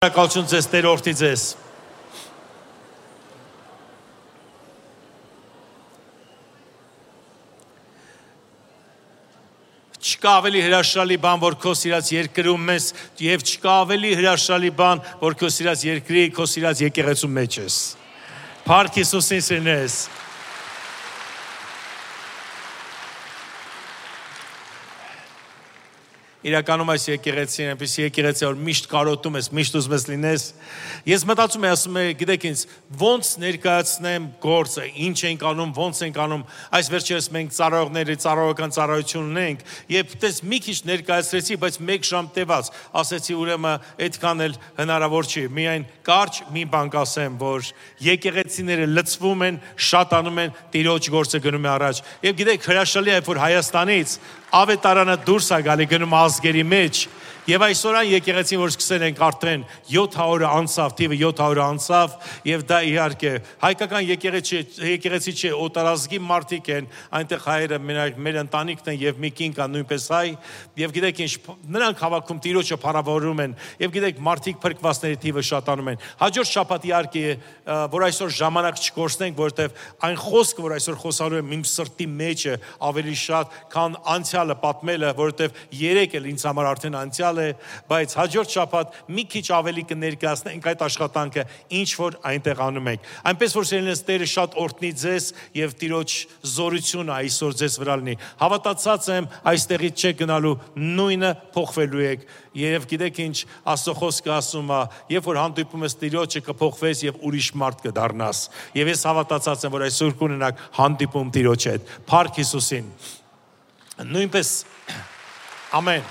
Շնորհակալություն ձեզ Տեր օրհնի ձեզ։ Չկա ավելի հրաշալի բան, որ քո սիրած երկրում ես, եւ չկա ավելի հրաշալի բան, որ քո սիրած երկրի, քո սիրած եկեղեցու մեջ ես։ Փառք Հիսուսին սիրնես։ Իրականում այս եկեղեցին, այնպեսի եկեղեցի, որ միշտ կարոտում ես, միշտ ուզում ես լինես։ Ես մտածում եմ, ասում եմ, գիտեք ինձ, ոնց ներկայացնեմ գործը, ինչ ենք անում, ոնց ենք անում։ Այս վերջերս մենք ծառայողների ծառայական ծառայություն ունենք, եւ դες մի քիչ ներկայացրեցի, բայց 1 ժամ տևած, ասեցի ուրեմն այդքան էլ հնարավոր չի։ Միայն կարճ մի բան կասեմ, որ եկեղեցիները լցվում են, շատանում են, Տիրոջ գործը գնում է առաջ։ Եվ գիտեք, հրաշալի է, որ Հայաստանից ավետարանը դուրս է գալի գնում ազգերի մեջ եւ այսօր այն եկեղեցին որ սկսել ենք արդեն 700 անցավ թիվը 700 անցավ եւ դա իհարկե հայկական եկեղեցի չէ օտարազգի մարդիկ են այնտեղ հայերը մեր ընտանիքն են եւ մի կին կա նույնպես հայ եւ գիտեք ինչ նրանք հավաքում Տիրոջը փառավորում են եւ գիտեք մարդիկ փրկվածների թիվը շատանում են հաջորդ շաբաթ իհարկե որ այսօր ժամանակ չկորցնենք որովհետեւ այն խոսքը որ այսօր խոսալու եմ իմ սրտի մեջ է ավելի շատ քան անցյալը պատմելը որովհետեւ 3 էլ ինձ համար արդեն անցյալ է, բայց հաջորդ շաբաթ մի քիչ ավելի կներկայացնենք այդ աշխատանքը, ինչ որ այնտեղ անում ենք։ Այնպես որ սիրելիներս Տերը շատ օրհնի ձեզ եւ Տիրոջ զորությունը այսօր ձեզ վրա լինի։ Հավատացած եմ, այստեղից չեք գնալու, նույնը փոխվելու եք։ Եվ գիտեք ինչ, Աստծո խոսքը ասում է, երբ որ հանդիպում ես Տիրոջը կփոխվես եւ ուրիշ մարդ կդառնաս։ Եվ ես հավատացած եմ, որ այսօր կունենաք հանդիպում Տիրոջ հետ։ Փառք Հիսուսին։ Նույնպես ամեն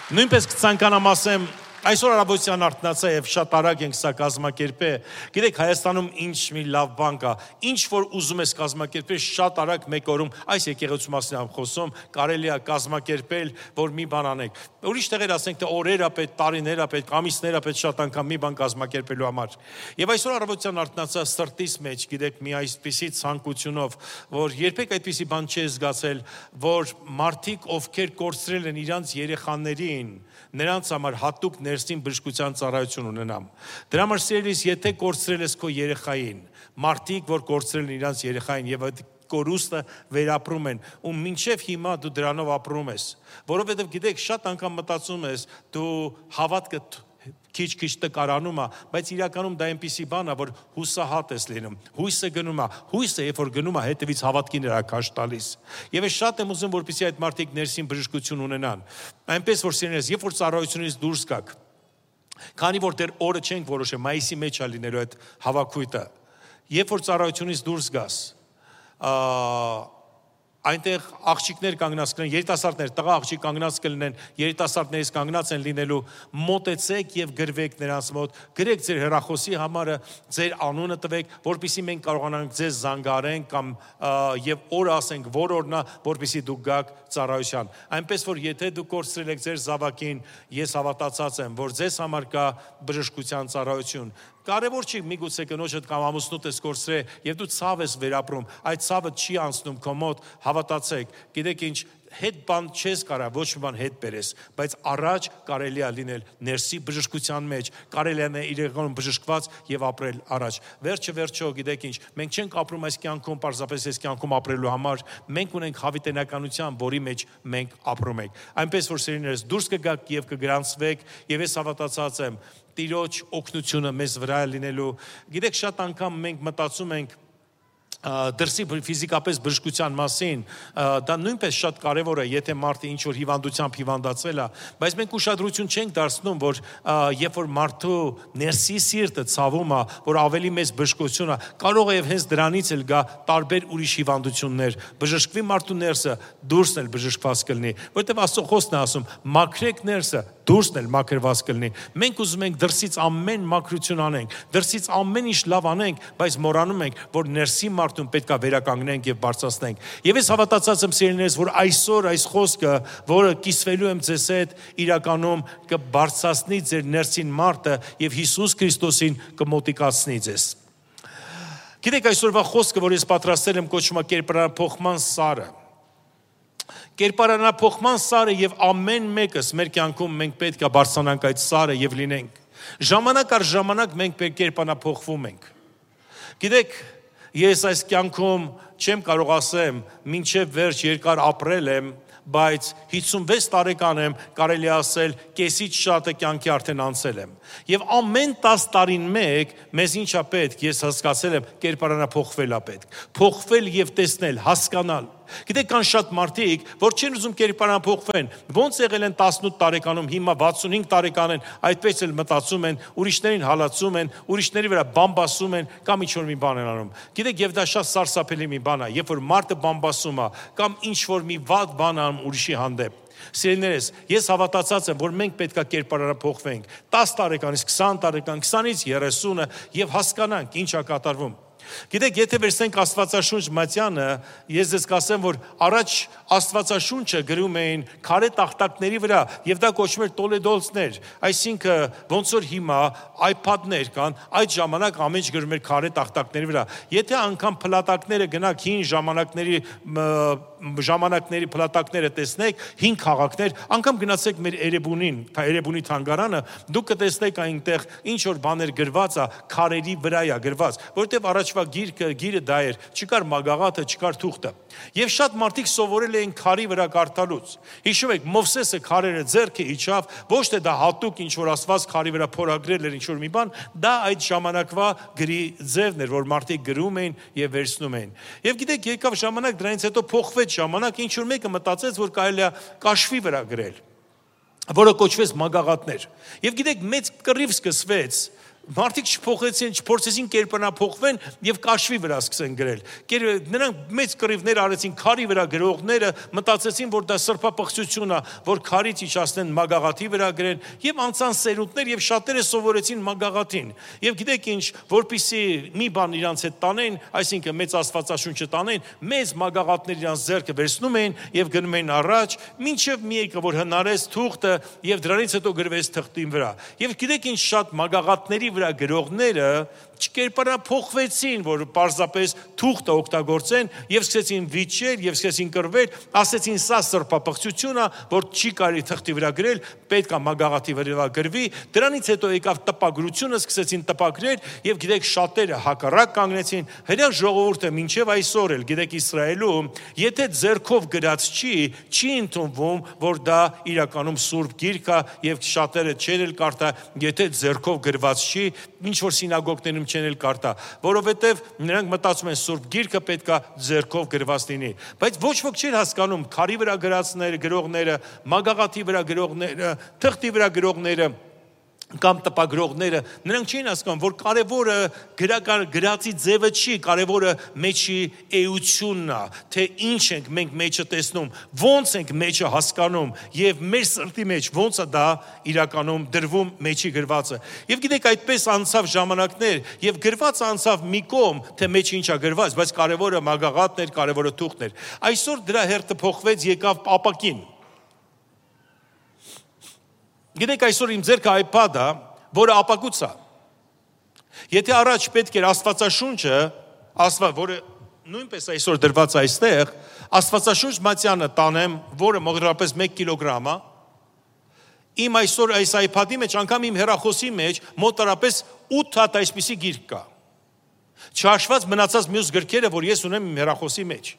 Նույնպես կցանկանամ ասեմ այսօր առավոտյան արթնացա եւ շատ արագ ենք սա կազմակերպել գիտեք Հայաստանում ինչ մի լավ բան կա ինչ որ ուզում ես կազմակերպել շատ արագ մեկ օրում այս եկեղեցու մասին եմ խոսում կարելի է կազմակերպել որ մի բան անեք ուրիշ տեղեր ասենք թե օրեր է պետք տարիներ է պետք ամիսներ է պետք շատ անգամ մի բան կազմակերպելու համար եւ այսօր առավոտյան արթնացա սրտիս մեջ գիտեք մի այսպիսի ցանկությունով որ երբեք այդպիսի բան չի զգացել որ մարդիկ ովքեր կորցրել են իրանց երեխաներին նրանց համար հատուկ ներսին բժշկության ծառայություն ունենամ։ Դրա համար սիրելիս, եթե կորցրել ես քո երեխային, մարդիկ, որ կորցրել են իրանց երեխային եւ այդ կորուստը վերապրում են, ու մինչև հիմա դու դրանով ապրում ես, որովհետեւ գիտեք, շատ անգամ մտածում ես, դու հավատքը քիչ տկարանում է, բայց իրականում դա այնպիսի բան է, որ հուսահատ ես լինում, հույսը գնում է, հույսը երբ որ գնում է, հետևից հավատքին հրաշք տալիս։ Եվ ես շատ եմ ուզում, որպեսզի այդ մարդիկ ներսին բժշկություն ունենան։ Այնպես որ սիրելիներս, երբ որ ծառայությունից դուրս գաք, քանի որ դեռ օրը չենք որոշել, մայիսի մեջ է լինելու այդ հավաքույթը, երբ որ ծառայությունից դուրս գաս, այնտեղ աղջիկներ կանգնած կլինեն, երիտասարդներ, տղա աղջիկ կանգնած կլինեն, երիտասարդներից կանգնած են լինելու, մոտեցեք եւ գրվեք նրանց մոտ, գրեք ձեր հեռախոսի համարը, ձեր անունը տվեք, որպեսզի մենք կարողանանք ձեզ զանգարենք կամ եւ օր ասենք, որ օրն է, որպեսզի դուք գաք ծառայության։ Այնպես որ եթե դուք կորցրել եք ձեր զավակին, ես հավատացած եմ, որ ձեզ համար կա բժշկության ծառայություն։ Կարևոր չի միգուցե կնոջդ կամ ամուսնուդ ես կորցրել եւ դու ցավ ես վերապրում, այդ ցավը չի անցնում քո մոտ, հավատացեք, գիտեք ինչ, հետ բան չես կարա, ոչ մի բան հետ բերես, բայց առաջ կարելի է լինել ներսի բժշկության մեջ, կարելի է իրականում բժշկված եւ ապրել առաջ։ Վերջը, գիտեք ինչ, մենք չենք ապրում այս կյանքում, պարզապես այս կյանքում ապրելու համար, մենք ունենք հավիտենականության, որի մեջ մենք ապրում ենք։ Այնպես որ սիրելիներս, դուրս կգաք եւ կգրանցվեք, եւ ես հավատացած եմ Տիրոջ օգնությունը մեզ վրա է լինելու։ Գիտեք, շատ անգամ մենք մտածում ենք դրսի ֆիզիկապես բժշկության մասին, դա նույնպես շատ կարևոր է, եթե մարդը ինչ որ հիվանդությամբ հիվանդացել է, բայց մենք ուշադրություն չենք դարձնում, որ երբ որ մարդու ներսի սիրտը ցավում է, որ ավելի մեծ բժշկություն է, կարող է եւ հենց դրանից էլ գա տարբեր ուրիշ հիվանդություններ, բժշկվի մարդու ներսը, դուրսն էլ բժշկված կլինի, որովհետեւ Աստծո խոսքն է ասում, մաքրեք ներսը, դուրսն էլ մաքրված կլինի։ Մենք ուզում ենք դրսից ամեն մաքրություն անենք, դրսից ամեն ինչ լավ անենք, բայց մոռանում ենք, որ ներսի մարդուն պետք է վերականգնենք եւ բարձրացնենք։ Եվ ես հավատացած եմ սիրելիներս, որ այսօր այս խոսքը, որը կիսվելու եմ ձեզ հետ, իրականում կբարձրացնի ձեր ներսին մարդը եւ Հիսուս Քրիստոսին կմոտիկացնի ձեզ։ Գիտեք, այսօրվա խոսքը, որ ես պատրաստել եմ, կոչվում է կերպարանափոխման սարը։ Կերպարանափոխման սարը եւ ամեն մեկս մեր կյանքում մենք պետք է բարձրանանք այդ սարը եւ լինենք։ Ժամանակ առ ժամանակ մենք կերպանափոխվում ենք։ Գիտեք, ես այս կյանքում չեմ կարող ասեմ, մինչև վերջ երկար ապրել եմ, բայց 56 տարեկան եմ, կարելի ասել, կեսից շատը կյանքի արդեն անցել եմ։ Եվ ամեն 10 տարին մեկ մեզ ինչա պետք, ես հասկացել եմ, կերպարանափոխվել է պետք։ Փոխվել եւ տեսնել, հասկանալ։ Գիտեք, կան շատ մարդիկ, որ չեն ուզում կերպարանափոխվեն, ոնց եղել են 18 տարեկանում, հիմա 65 տարեկան են, այդպես էլ մտածում են, ուրիշներին հալածում են, ուրիշների վրա բամբասում են, կամ ինչ-որ մի բան են անում։ Գիտեք, եւ դա շատ սարսափելի մի բան է, երբ որ մարդը բամբասում է, կամ ինչ-որ մի վատ բան անում ուրիշի հանդեպ։ Սիրելիներս, ես հավատացած եմ, որ մենք պետք է կերպարանափոխվենք 10 տարեկանից 20 տարեկան, 20-ից 30-ը եւ հասկանանք ինչ է կատարվում։ Գիտեք, եթե վերցնենք Աստվածաշունչ Մատյանը, ես ձեզ կասեմ, որ առաջ Աստվածաշունչը գրում էին քարե տախտակների վրա, եւ դա կոչվում էր տոլեդոլցներ, այսինքն ոնց որ հիմա iPad-ներ կան, այդ ժամանակ ամեն ինչ գրում էր քարե տախտակների վրա։ Եթե անգամ փլատակները գնաք հին ժամանակների փլատակները տեսնեք, հին քաղաքներ, անգամ գնացեք մեր Էրեբունի թանգարանը, դուք կտեսնեք այնտեղ ինչ որ բաներ գրված է, քարերի վրա է գրված, որտեղ առաջվա գիրը դա էր, չկար մագաղաթը, չկար թուղթը։ Եվ շատ մարդիկ սովորել էին քարի վրա կարդալուց։ Հիշում եք, Մովսեսը քարերը ձեռքը իջավ, ոչ թե դա հատուկ ինչ որ Աստված քարի վրա փորագրել էր ինչ որ մի բան, դա այդ ժամանակվա գրի ձևն էր, որ մարդիկ գրում էին եւ վերցնում էին։ Եվ գիտեք, եկավ ժամանակ, դրանից հետո փոխվեց ժամանակ, ինչ որ մեկը մտածեց, որ կարելի է կաշվի վրա գրել, որը կոչվեց մագաղաթներ։ Եվ գիտեք, մեծ կռիվ սկսվեց, մարդիկ չփոխեցին կերպարանափոխվեն եւ կաշվի վրա սկսեն գրել։ Նրանք մեծ կռիվներ արեցին քարի վրա գրողները, մտածեցին, որ դա սրբապղծություն է, որ քարից իջացնեն մագաղաթի վրա գրեն եւ անցան սերունդներ եւ շատերը սովորեցին մագաղաթին։ Եւ գիտեք ինչ, որpիսի մի բան իրանց հետ տանեն, այսինքն մեծ Աստվածաշունչը տանեն, մեծ մագաղաթներ իրանց ձեռքը վերցնում էին եւ գնում էին առաջ, մինչեւ մի եկը որ հնարեց թուղթը եւ դրանից հետո գրվեց թղթին վրա։ Եվ գիտեք ինչ, շատ մագաղաթների վրա գրողները չկերպարանափոխվեցին, որ պարզապես թուղթը օգտագործեն եւ սկսեցին վիճել եւ սկսեցին կռվել, ասեցին սա սրբապղծություն է, որ չի կարելի թղթի վրա գրել, պետք է մագաղաթի վրա գրվի։ Դրանից հետո եկավ տպագրությունը, սկսեցին տպագրել եւ գիտեք շատերը հակառակ կանգնեցին։ Հրաշք ժողովուրդը մինչեւ այսօր էլ գիտեք Իսրայելում, եթե ձեռքով գրած չի ընդունվում, որ դա իրականում սուրբ գիրք է եւ շատերը չեն էլ կարդա, եթե ձեռքով գրված չի, ինչ որ սինագոգներում չեն էլ կարդա, որովհետև նրանք մտածում են սուրբ գիրքը պետք է ձեռքով գրված լինի, բայց ոչ ոք չի հասկանում քարի վրա գրողները, մագաղաթի վրա գրողները, թղթի վրա գրողները կամ տպագրողները, նրանք չէին հասկանում, որ կարևորը գրածի ձևը չի, կարևորը մեջի էությունն է, թե ինչ ենք մենք մեջը տեսնում, ոնց ենք մեջը հասկանում եւ մեր սրտի մեջ ոնց է դա իրականում դրվում մեջի գրվածը։ Եվ գիտեք, այդպես անցավ ժամանակներ եւ գրված անցավ մի կողմ, թե մեջը ինչ է գրված, բայց կարևորը մագաղաթն էր, կարևորը թուղթն էր։ Այսօր դրա հերթը փոխվեց, եկավ ապակին։ Գիտեք, այսօր իմ ձեռքը iPad-ը, որը ապակուց է։ Եթե առաջ պետք էր Աստվածաշունչը, որը նույնպես այսօր դրված է այստեղ, Աստվածաշունչ Մատյանը տանեմ, որը մոտավորապես 1 կիլոգրամ է, իմ այսօր այս iPad-ի մեջ, անգամ իմ հեռախոսի մեջ մոտավորապես 8 հատ այսպիսի գիրք կա։ Չհաշված մնացած մյուս գրքերը, որ ես ունեմ իմ հեռախոսի մեջ։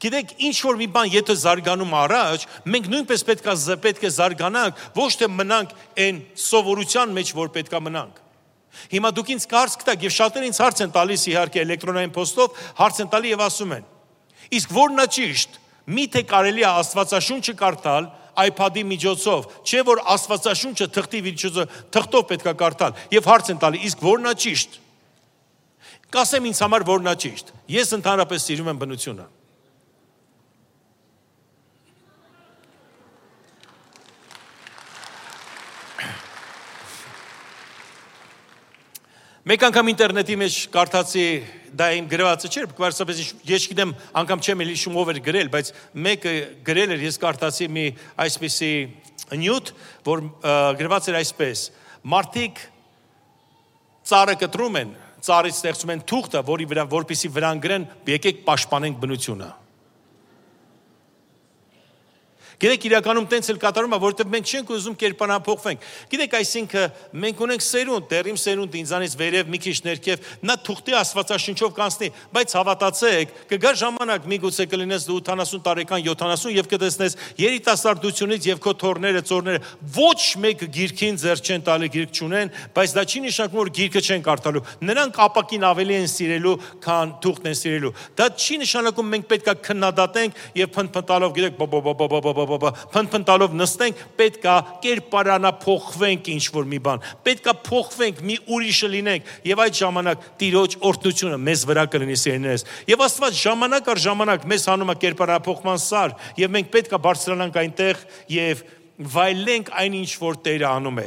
Գիտեք, ինչ որ մի բան եթե զարգանում առաջ, մենք նույնպես պետք է զարգանանք, ոչ թե մնանք այն սովորության մեջ, որ պետք է մնանք։ Հիմա դուք ինձ հարց կտաք եւ շատերը ինձ հարց են տալիս իհարկե էլեկտրոնային փոստով, հարց են տալի եւ ասում են. իսկ որն է ճիշտ, միթե կարելի է Աստվածաշունչը կարդալ iPad-ի միջոցով, չէ որ Աստվածաշունչը թղթով պետք է կարդալ եւ հարց են տալի, իսկ որն է ճիշտ։ Կասեմ ինձ համար որն է ճիշտ։ Ես ընդհանրապես սիրում եմ բնությունը։ Մեկ անգամ ինտերնետի մեջ կարդացի, դա իմ գրվածը չէր, պարզապես ես գիտեմ, անգամ չեմ էլ հիշում ով էր գրել, բայց մեկը գրել էր, ես կարդացի մի այսպիսի նյութ, որ գրված էր այսպես. մարդիկ ծառը կտրում են, ծառից ստեղծում են թուղթը, որպեսզի վրան գրեն, եկեք պաշտպանենք բնությունը։ Գիտեք, իրականում տենց էլ կատարում է, որովհետև մենք չենք ուզում կերպարանափոխվենք։ Գիտեք, այսինքն մենք ունենք սերունդ, դերիմ սերունդ ինձանից վերև մի քիչ ներքև, նա թուղթի աստվածաշնչով կանցնի, բայց հավատացեք, կգա ժամանակ, միգուցե կլինես դու 80 տարեկան, 70 եւ կտեսնես երիտասարդությունից եւ քո թորները, ծորները ոչ մեկ գիրքին ձեռ չեն տալի, գիրք չունեն, բայց դա չի նշանակում, որ գիրքը չեն կարդալու։ Նրանք ապակին ավելի են սիրելու, քան թուղթն են սիրելու։ Դա չի նշանակում մենք պետքա քննադատենք եւ փնփնտալով, գիտեք, փնփնտալով նստենք, պետքա կերպարանափոխվենք ինչ-որ մի բան, պետքա փոխվենք, մի ուրիշը լինենք եւ այդ ժամանակ Տիրոջ օրհնությունը մեզ վրա կլինի, սիրելիներս։ Եվ Աստված ժամանակ առ ժամանակ մեզ հանում է կերպարանափոխման սար եւ մենք պետքա բարձրանանք այնտեղ եւ վայելենք այնինչ որ Տերը անում է։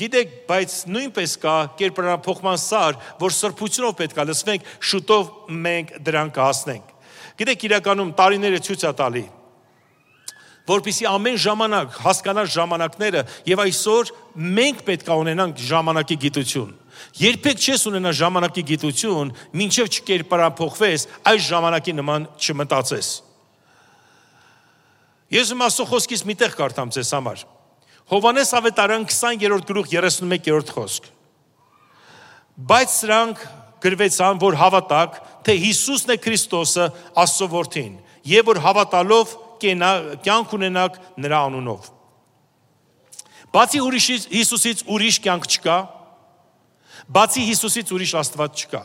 Գիտեք, բայց նույնպես կա կերպարանափոխման սար, որ սրբությունով պետքա լսվենք, շուտով մենք դրան կհասնենք։ Գիտեք, իրականում տարիները ցույց է տալի, որպեսզի ամեն ժամանակ հասկանալ ժամանակները եւ այսօր մենք պետք է ունենանք ժամանակի գիտություն։ Երբեք չես ունենա ժամանակի գիտություն, մինչեւ չկերպարանափոխվես, այս ժամանակի նման չմտածես։ Ես Աստծո խոսքից մի տեղ կարդամ ձեզ համար։ Հովհաննես ավետարան 20-րդ գլուխ 31-րդ խոսք։ Բայց սրանք գրվեցան, որ հավատակ, թե Հիսուսն է Քրիստոսը, Աստծո որդին, եւ որ հավատալով կյանք ունենաք նրա անունով։ Բացի Հիսուսից ուրիշ կյանք չկա, բացի Հիսուսից ուրիշ Աստված չկա։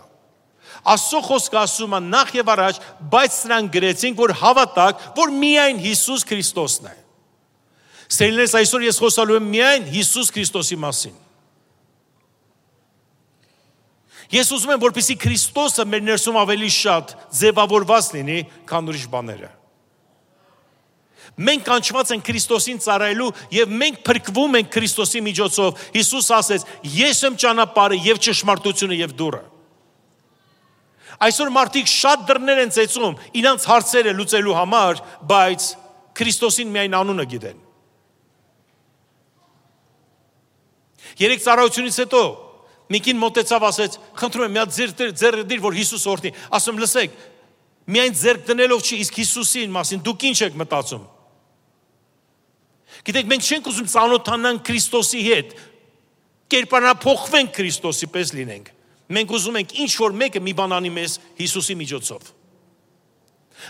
Աստծո խոսքը ասում է նախ եւ առաջ, բայց սրանք գրեցինք, որ հավատակ, որ միայն Հիսուս Քրիստոսն է։ Սերելիներս, այսօր ես խոսալու եմ միայն Հիսուս Քրիստոսի մասին։ Ես ուզում եմ, որպեսզի Քրիստոսը մեր ներսում ավելի շատ ձևավորված լինի, քան ուրիշ բաները։ Մենք կանչված ենք Քրիստոսին ծառայելու եւ մենք փրկվում ենք Քրիստոսի միջոցով։ Հիսուս ասեց. «Ես եմ ճանապարհը եւ ճշմարտությունը եւ դուռը»։ Այսօր մարդիկ շատ դռներ են ծեծում իրանց հարցերը լուծելու համար, բայց Քրիստոսին միայն անունը գիտեն։ Երեք ծառայությունից հետո Միկին մոտեցավ, ասեց. «Խնդրում եմ, մի հատ ձեռք դիր, որ Հիսուս օրհնի»։ Ասում, լսեք, միայն ձեռք դնելով չի, իսկ Հիսուսին մասին դուք ինչ եք մտածում։ Գիտեք, մենք չենք ուզում ծանոթանանք Քրիստոսի հետ, կերպարանափոխվենք Քրիստոսի պես լինենք։ Մենք ուզում ենք ինչ որ մեկը մի բան անի մեզ Հիսուսի միջոցով։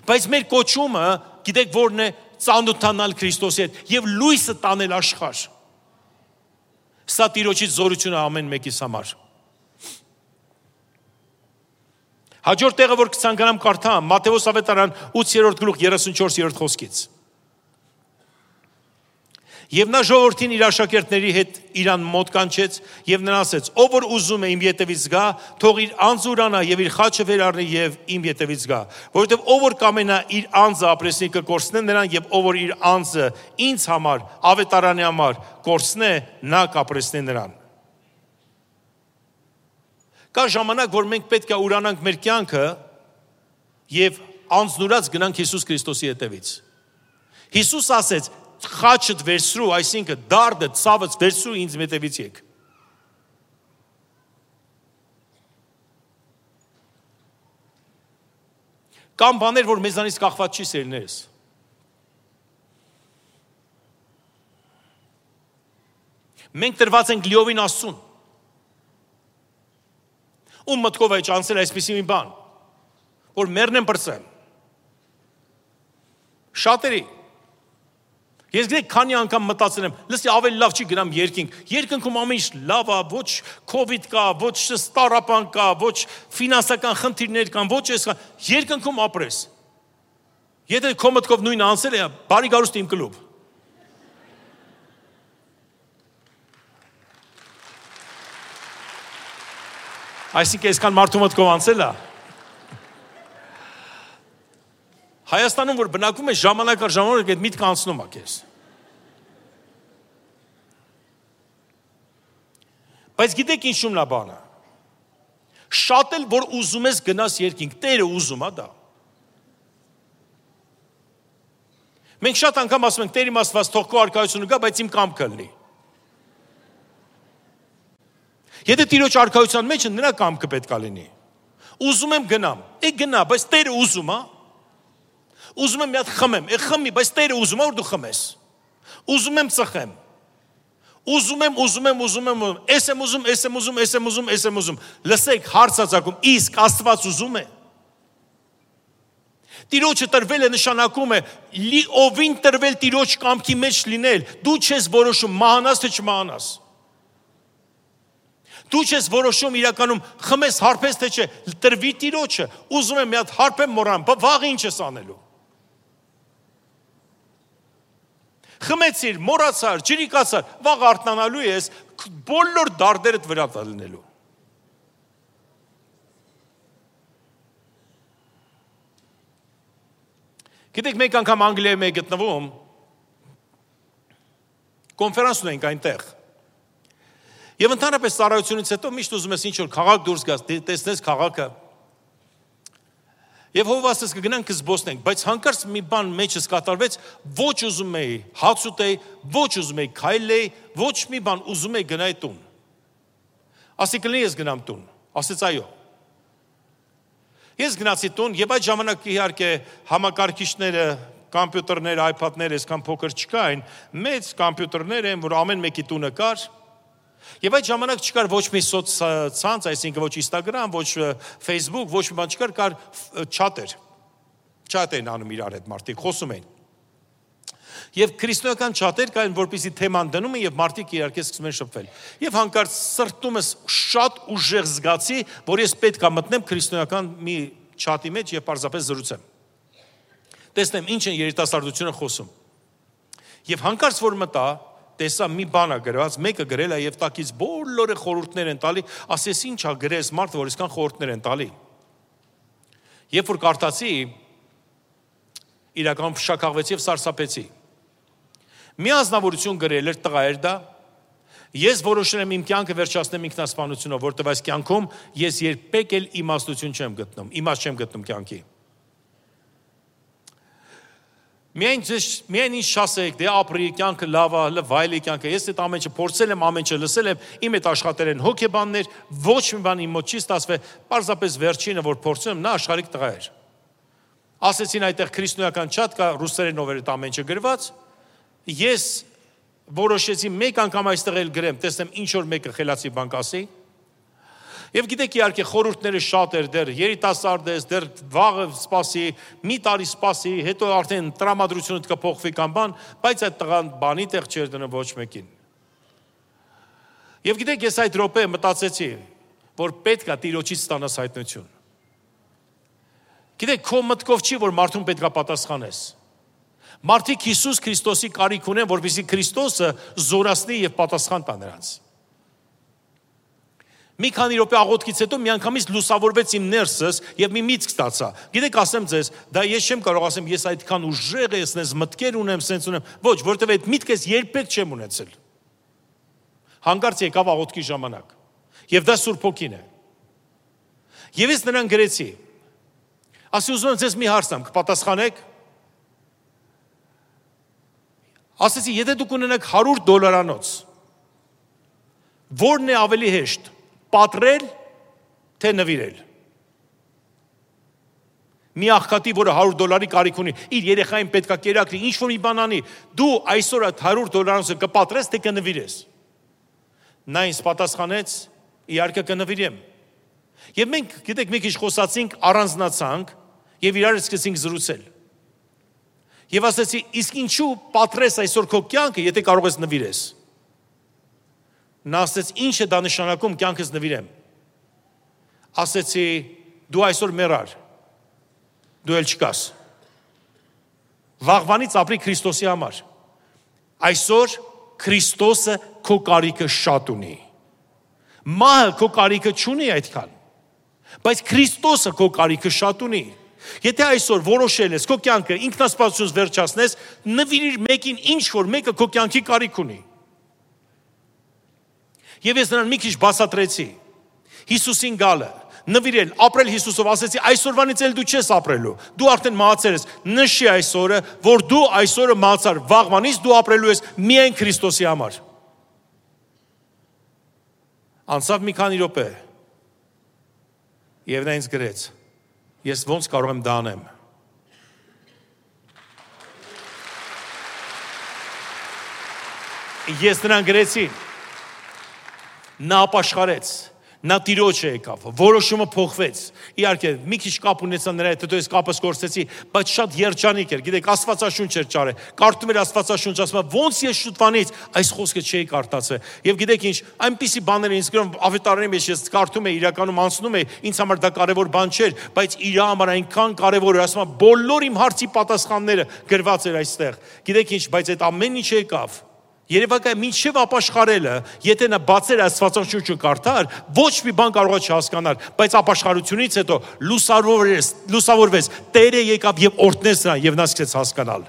Բայց մեր կոչումը, գիտեք որն է, ծանոթանալ Քրիստոսի հետ եւ լույսը տանել աշխարհ։ Սա Տիրոջից զորությունը ամեն մեկիս համար։ Հաջորդ տեղը, որ կցանկանամ կարդամ, Մատթեոս ավետարան 8-րդ գլուխ 34-րդ խոսքից։ Եվ նա ժողովրդին իր աշակերտների հետ իրան մոտ կանչեց եւ նրան ասեց. «Ով որ ուզում է իմ ետևից գա, թող իր անձը ուրանա եւ իր խաչը վեր առնի եւ իմ ետևից գա, որովհետեւ ով որ կամենա իր անձը ապրեսնի կկորցնե նրան եւ ով որ իր անձը ինձ համար, ավետարանի համար կորցնե, նա կապրեսնի նրան»։ Կա ժամանակ, որ մենք պետք է ուրանանք մեր կյանքը եւ անձնուրած գնանք Հիսուս Քրիստոսի ետևից։ Հիսուս ասեց. «Խաչդ վերցրու, այսինքն դարդը, ցավդ վերցրու ինձ հետևից եք»։ Կան բաներ, որ մեզանից կախված չի, սերներս։ Մենք տրված ենք լիովին Աստծուն։ Ում մտքով է ճանցել այսպիսի մի բան, որ մեռնեմ պրծեմ։ Շատերի։ Ես գիտեք, քանի անգամ մտածել եմ, լսի ավելի լավ չի գնամ երկինք։ Երկնքում ամեն ինչ լավ է, ոչ կովիդ կա, ոչ ստարապան կա, ոչ ֆինանսական խնդիրներ կան, ոչ էս կա։ Երկնքում ապրես։ Եթե քո մտքով նույնը անցել է, բարի գարուստ իմ կլուբ։ Այսինքն այսքան մարդու մտքով անցել է։ Հայաստանում, որ բնակվում է, ժամանակ առ ժամանակ այդ միտքը անցնում է քեզ։ Բայց գիտեք ինչու՞մն է բանը։ Շատ էլ որ ուզում ես գնաս երկինք, Տերը ուզում է դա։ Մենք շատ անգամ ասում ենք, Տեր իմ Աստված, թող քո արքայությունը գա, բայց իմ կամքը լինի։ Եթե Տիրոջ արքայության մեջ նրա կամքը պետք է լինի։ Ուզում եմ գնամ, գնա, բայց Տերը ուզում է։ Ուզում եմ մի հատ խմեմ, խմի, բայց Տերը ուզում է որ դու խմես։ Ուզում եմ ծխեմ։ Ուզում եմ, ես եմ ուզում։ Լսեք, հարցածակում, իսկ Աստված ուզում է։ Տիրոջը տրվել է նշանակում է ովին տրվել Տիրոջ կամքի մեջ լինել։ Դու չես որոշում մահանաս թե չմահանաս։ Դու չես որոշում իրականում խմես հարբես թե չէ, տրվի Տիրոջը։ Ուզում եմ մի հատ հարբեմ մոռանամ, վաղ ինչ ես անելու։ Խմեցիր, մոռացար, ջրիկացար, վաղ արթնանալու ես, բոլոր դարդերդ վրա լինելու։ Գիտեք, մեկ անգամ Անգլիայում էի գտնվում, կոնֆերանս ունենք այնտեղ։ Եվ ընդհանրապես ծառայությունից հետո միշտ ուզում ես ինչ-որ քաղաք դուրս գաս, տեսնես քաղաքը։ Եվ հովասես կգնանք կզբոսնենք, բայց հանկարծ մի բան մեջս կատարվեց, ոչ ուզում էի հաց ուտեի, ոչ ուզում էի քայլեի, ոչ մի բան ուզում էի գնայի տուն։ Ասի կլինի ես գնամ տուն, ասեց այո։ Ես գնացի տուն եւ այդ ժամանակ իհարկե համակարգիչները, կոմպյուտերները, iPad-ները այսքան փոքր չկային, մեծ կոմպյուտերներ են, որ ամեն մեկի տունը կար։ Եվ այդ ժամանակ չկար ոչ մի սոցցանց, այսինքն ոչ Instagram, ոչ Facebook, ոչ մի բան չկար, կար չաթեր։ Չաթ էին անում իրար հետ մարդիկ, խոսում էին։ Եվ քրիստոնեական չաթեր կային, որպեսզի թեման դնում են եւ մարդիկ իհարկե սկսում են շփվել։ Եվ հանկարծ սրտումս շատ ուժեղ զգացի, որ ես պետք է մտնեմ քրիստոնեական մի չաթի մեջ եւ պարզապես զրուցեմ։ Տեսնեմ ինչ են երիտասարդությունը խոսում։ Եվ հանկարծ որ մտա, տեսա մի բան է գրված, մեկը գրել է եւ տակից բոլորը խորհուրդներ են տալի, ասես ինչ է գրես մարդը, որ այսքան խորհուրդներ են տալի։ Երբ որ կարդացի, իրական փշակաղվեցի եւ սարսափեցի։ Մի ազնվորություն գրել էր, տղա էր դա, ես որոշել եմ իմ կյանքը վերջացնեմ ինքնասպանությունով, որտեղ այս կյանքում ես երբեք էլ իմաստություն չեմ գտնում, իմաստ չեմ գտնում կյանքի։ Միայն ինչ շասեք, դե ապրի, կյանքը լավ է, վայելի կյանքը, ես այդ ամեն ինչը փորձել եմ, ամեն ինչը լսել եմ, իմ հետ աշխատել են հոգեբաններ, ոչ մի բան իմ մոտ չի ստացվել, պարզապես վերջինը, որ փորձում եմ, նա աշխարհիկ տղա էր։ Ասեցին այդտեղ քրիստոնեական չաթ կա, ռուսերենով էր այդ ամեն ինչը գրված, ես որոշեցի մեկ անգամ այստեղ էլ գրեմ, տեսնեմ ինչ որ մեկը խելացի բան կասի։ Եվ գիտեք իհարկե խորհուրդները շատ էր, դեռ երիտասարդ ես, դեռ վաղը սպասի, մի տարի սպասի, հետո արդեն տրամադրությունը կփոխվի կամ բան, բայց այդ տղան բանի տեղ չէր դնում ոչ մեկին։ Եվ գիտեք ես այդ րոպե մտածեցի, որ պետք է Տիրոջից ստանաս հայտնություն։ Գիտեք քո մտքով չի, որ մարդուն պետք է պատասխանես։ Մարդիկ Հիսուս Քրիստոսի կարիք ունեն, որպեսզի Քրիստոսը զորացնի եւ պատասխան տա նրանց։ Մի քանի րոպե աղոթքից հետո միանգամից լուսավորվեց իմ ներսս եւ մի միտք ստացա։ Գիտեք, ասեմ ձեզ, դա ես չեմ կարող ասեմ, ես այդքան ուժեղ եմ, ես մտքեր ունեմ, սենց ունեմ։ Ոչ, որտեւ այդ միտքը երբեք չեմ ունեցել։ Հանկարծ եկավ աղոթքի ժամանակ։ Եվ դա Սուրբ Հոգին է։ Եվ ես նրան գրեցի։ Ասի ուզում եմ ձեզ մի հարց տամ, կպատասխանեք։ Ասեցի, եթե դուք ունենաք $100, որն է ավելի հեշտ, պատրել, թե նվիրել։ Մի աղքատի, որը $100 կարիք ունի, իր երեխային պետքա կերակրի, ինչ որ մի բան անի, դու այսօր այդ $100 կպատրես, թե կնվիրես։ Նա ինձ պատասխանեց, իհարկե կնվիրեմ։ Եվ մենք, գիտեք, մի քիչ խոսացինք, առանձնացանք եւ իրար սկսեցինք զրուցել։ Եվ ասեցի, իսկ ինչու պատրես այսօր քո կյանքը, եթե կարող ես նվիրես։ Նա ասեց, ինչ է դա նշանակում կյանքս նվիրեմ։ Ասեցի, դու այսօր մեռար, դու էլ չկաս։ Վաղվանից ապրի Քրիստոսի համար։ Այսօր Քրիստոսը քո կարիքը շատ ունի։ Մահը քո կարիքը չունի այդքան, բայց Քրիստոսը քո կարիքը շատ ունի։ Եթե այսօր որոշել ես քո կյանքը ինքնասպասությունից վերջացնես, նվիրիր մեկին, ինչ որ մեկը քո կյանքի կարիք ունի։ Եվ ես նրան մի քիչ բացատրեցի։ Հիսուսին գալը, նվիրել, ապրել Հիսուսով, ասեցի, այսօրվանից էլ դու չես ապրելու։ Դու արդեն մահացել ես։ Նշի այսօրը, որ դու այսօրը մահացար, վաղվանից դու ապրելու ես միայն Քրիստոսի համար։ Անցավ մի քանի րոպե։ Եվ նա ինձ գրեց. ես ոնց կարող եմ դա անեմ։ Ես նրան գրեցի, նա ապաշխարեց, նա տիրոջը եկավ, որոշումը փոխվեց, իհարկե, մի քիչ կապ ունեցա նրա հետ, հետո ես կապս կորցրեցի, բայց շատ երջանիկ էր, գիտեք, Աստվածաշունչ էր ճարը, կարդում էր Աստվածաշունչ, ասում է, ոնց ես շուտվանից այս խոսքը չէի կարդացել, եւ գիտեք ինչ, այնպիսի բաներ ինձ գրում, ավետարանի մեջ ես կարդում եի, իրականում անցնում եի, ինձ համար դա կարևոր բան չէր, բայց իր համար այնքան կարևոր էր, ասում է, բոլոր իմ հարցի պատասխանները գրված էր այստեղ, գիտեք ինչ, բայց այդ ամեն ինչ եկավ Երևակայ մինչև ապաշխարելը, եթե նա բացեր Աստվածաշունչը կարդար, ոչ մի բան կարող է չհասկանալ, բայց ապաշխարությունից հետո լուսավորվեց, Տերը եկավ եւ օրհնեց նրան եւ նա սկսեց հասկանալ։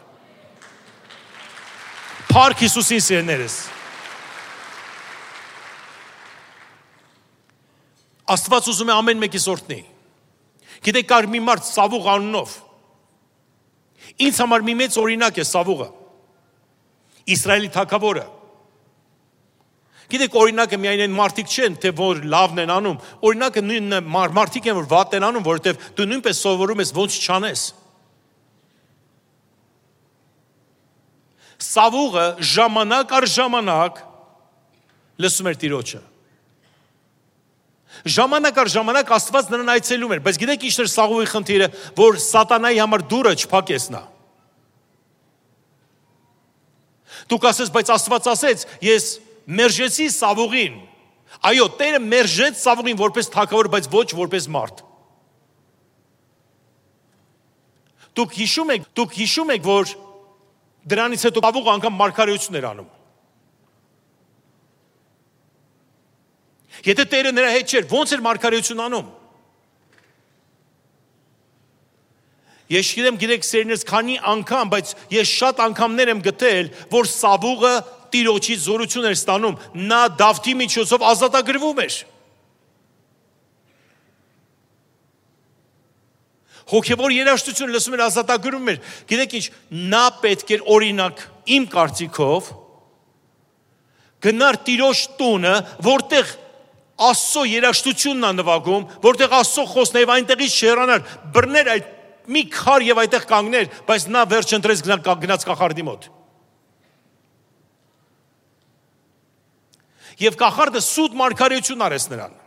Փառք Հիսուսին սիրելիներս։ Աստված ուզում է ամեն մեկիս օրհնի։ Գիտեք, կար մի մարդ Սավուղ անունով։ Ինձ համար մի մեծ օրինակ է Սավուղը։ Իսրայելի թագավորը։ Գիտեք, օրինակը միայն այն մարդիկ չեն, թե որ լավն են անում, օրինակը նույն մարդիկ են, որ վատ են անում, որովհետև դու նույնպես սովորում ես ոնց չանես։ Սավուղը ժամանակ առ ժամանակ լսում էր Տիրոջը։ Ժամանակ առ ժամանակ Աստված նրան այցելում էր, բայց գիտեք ինչ էր Սավուղի խնդիրը, որ սատանայի համար դուռը չփակես նա։ Դուք ասես, բայց Աստված ասեց, ես մերժեցի Սավուղին։ Այո, Տերը մերժեց Սավուղին որպես թագավոր, բայց ոչ որպես մարդ։ Դուք հիշում եք, որ դրանից հետո Սավուղը անգամ մարգարեություն էր անում։ Եթե Տերը նրա հետ չէր, ո՞նց էր մարգարեություն անում։ Ես գիտեմ, գիտեք, սերներս քանի անգամ, բայց ես շատ անգամներ եմ գտել, որ Սավուղը Տիրոջից զորություն էր ստանում, նա Դավթի միջոցով ազատագրվում էր։ Հոգևոր երաժշտություն լսում էր, ազատագրվում էր։ Գիտեք ինչ, նա պետք էր օրինակ իմ կարծիքով գնար Տիրոջ տունը, որտեղ Աստծո երաժշտությունն է նվագում, որտեղ Աստծո խոսքն է, եւ այնտեղից չհեռանար, բռներ այդ մի քար եւ այդտեղ կանգներ, բայց նա վերջ ընտրեց գնաց կախարդի մոտ։ Եվ կախարդը սուտ մարգարեություն արեց նրան։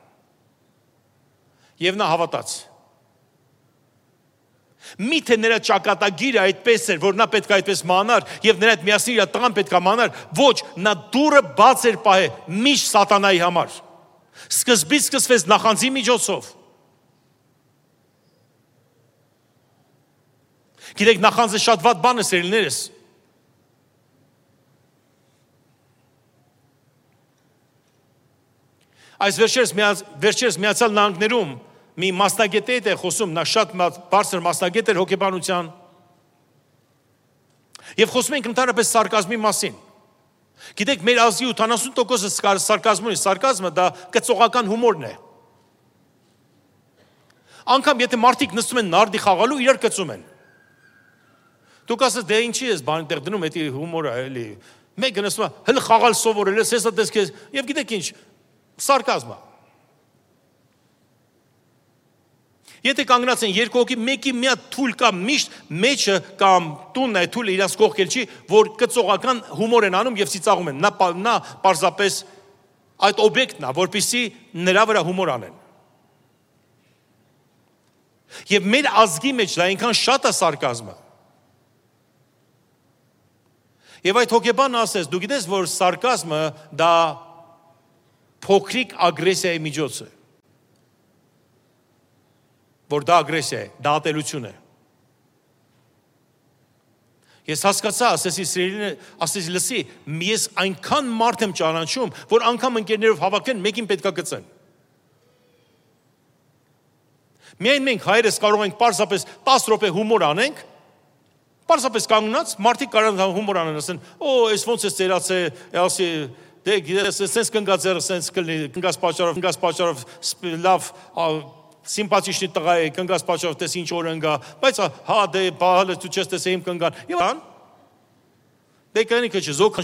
Եվ նա հավատաց։ Միթե նրա ճակատագիրը այդպես էր, որ նա պետք է այդպես մանար, եւ նրա հետ միասին իր տղան պետք է մանար, ոչ, նա դուռը բաց էր պահել միշտ սատանայի համար։ Սկզբից սկսվեց նախանձի միջոցով։ Գիտեք, նախանձը շատ վատ բան է, սիրելիներս։ Այս վերջերս Միացյալ Նահանգներում մի մասնագետ է խոսում, նա շատ բարձր մասնագետ էր հոգեբանության։ Եվ խոսում ենք ընդհանրապես սարկազմի մասին։ Գիտեք, մեր ազգի 80%-ը սարկազմ ունի, սարկազմը դա կծողական հումորն է։ Անկամ եթե մարդիկ նստում են նարդի խաղալու, իրար կծում են։ Դուք ասես, դե ինչի ես բան տեղ դնում, էդի հումոր է, էլի։ Մեկը նստում է, հələ խաղալ սովորել ես, հեսա դες քեզ, եւ գիտեք ինչ, սարկազմ է։ Եթե կանգնած են երկու հոգի, մեկի մի հատ թույլ կամ միշտ մեջը կամ տունն է թույլը իրաց կողքել չի, որ կծողական հումոր են անում եւ ծիծաղում են։ Նա պարզապես այդ օբյեկտն է, որպեսզի նրա վրա հումոր անեն։ Եվ մեր ազգի մեջ դա այնքան շատ է սարկազմը։ Եվ այդ հոգեբանը ասես, դու գիտես, որ սարկազմը դա փոքրիկ ագրեսիայի միջոց է։ Որ դա ագրեսիա է, դա ատելություն է։ Ես հասկացա, ասեցի լսի, ես այնքան մարդ եմ ճանաչում, որ անգամ ընկերներով հավաքեն, մեկին պետքա գծեն։ Միայն մենք հայերս կարող ենք պարզապես 10 րոպե հումոր անենք, պարզապես կանգնած, մարդիկ կարող են հումոր անեն, ասեն, այս ոնց է ծերացել, ասի, դե գիտես, սենց կնգա ձեռը, սենց կնգաս պատճառով, լավ, սիմպաթիչնի տղա է, կնգաս պատճառով, տես ինչ օր ընգա, բայց հա, դե, բահալը դու չես տեսե իմ կնգան, եւ ան, դե կնիկը չէ, զոք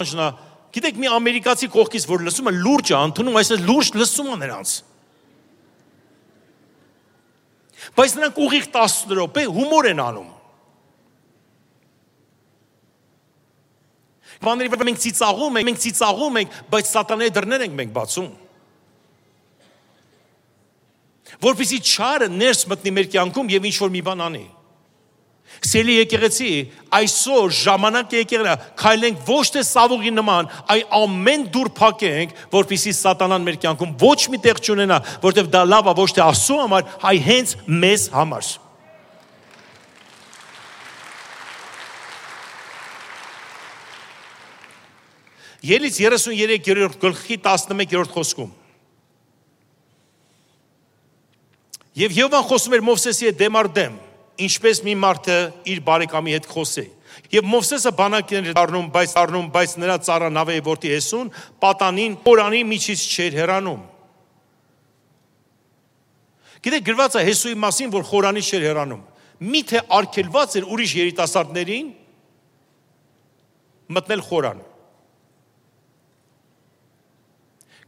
խնչնա, գիտեք մի ամերիկացի կողքից, որ լսում է լուրջ է, ընդունում, այսպես լուրջ լսում է նրանց։ Բայց նրանք ուղիղ 10 րոպե հումոր են անում։ բաների վրա մենք ծիծաղում ենք, բայց սատանայի դռներ ենք մենք բացում։ Որպեսզի չարը ներս մտնի մեր կյանքում եւ ինչ-որ մի բան անի։ Սիրելի եկեղեցի, այսօր ժամանակ եկեղեցի, քայլենք ոչ թե սավուղի նման, այլ ամեն դուր փակենք, որպեսզի սատանան մեր կյանքում ոչ մի տեղ չունենա, որտեղ դա լավ է ոչ թե Աստծո համար, այլ հենց մեզ համար։ Ելից 33-րդ գլխի 11-րդ խոսքում։ Եվ Եհովան խոսում էր Մովսեսի հետ դեմ առ դեմ, ինչպես մի մարդը իր բարեկամի հետ խոսի։ Եվ Մովսեսը բանակներ առնում, բայց նրա ծառա Նավեի որդի Հեսուն պատանին Խորանի միջից չէր հեռանում։ Գիտեք, գրված է Հեսուի մասին, որ Խորանի չէր հեռանում։ Միթե արգելված էր ուրիշ երիտասարդներին մտնել Խորան։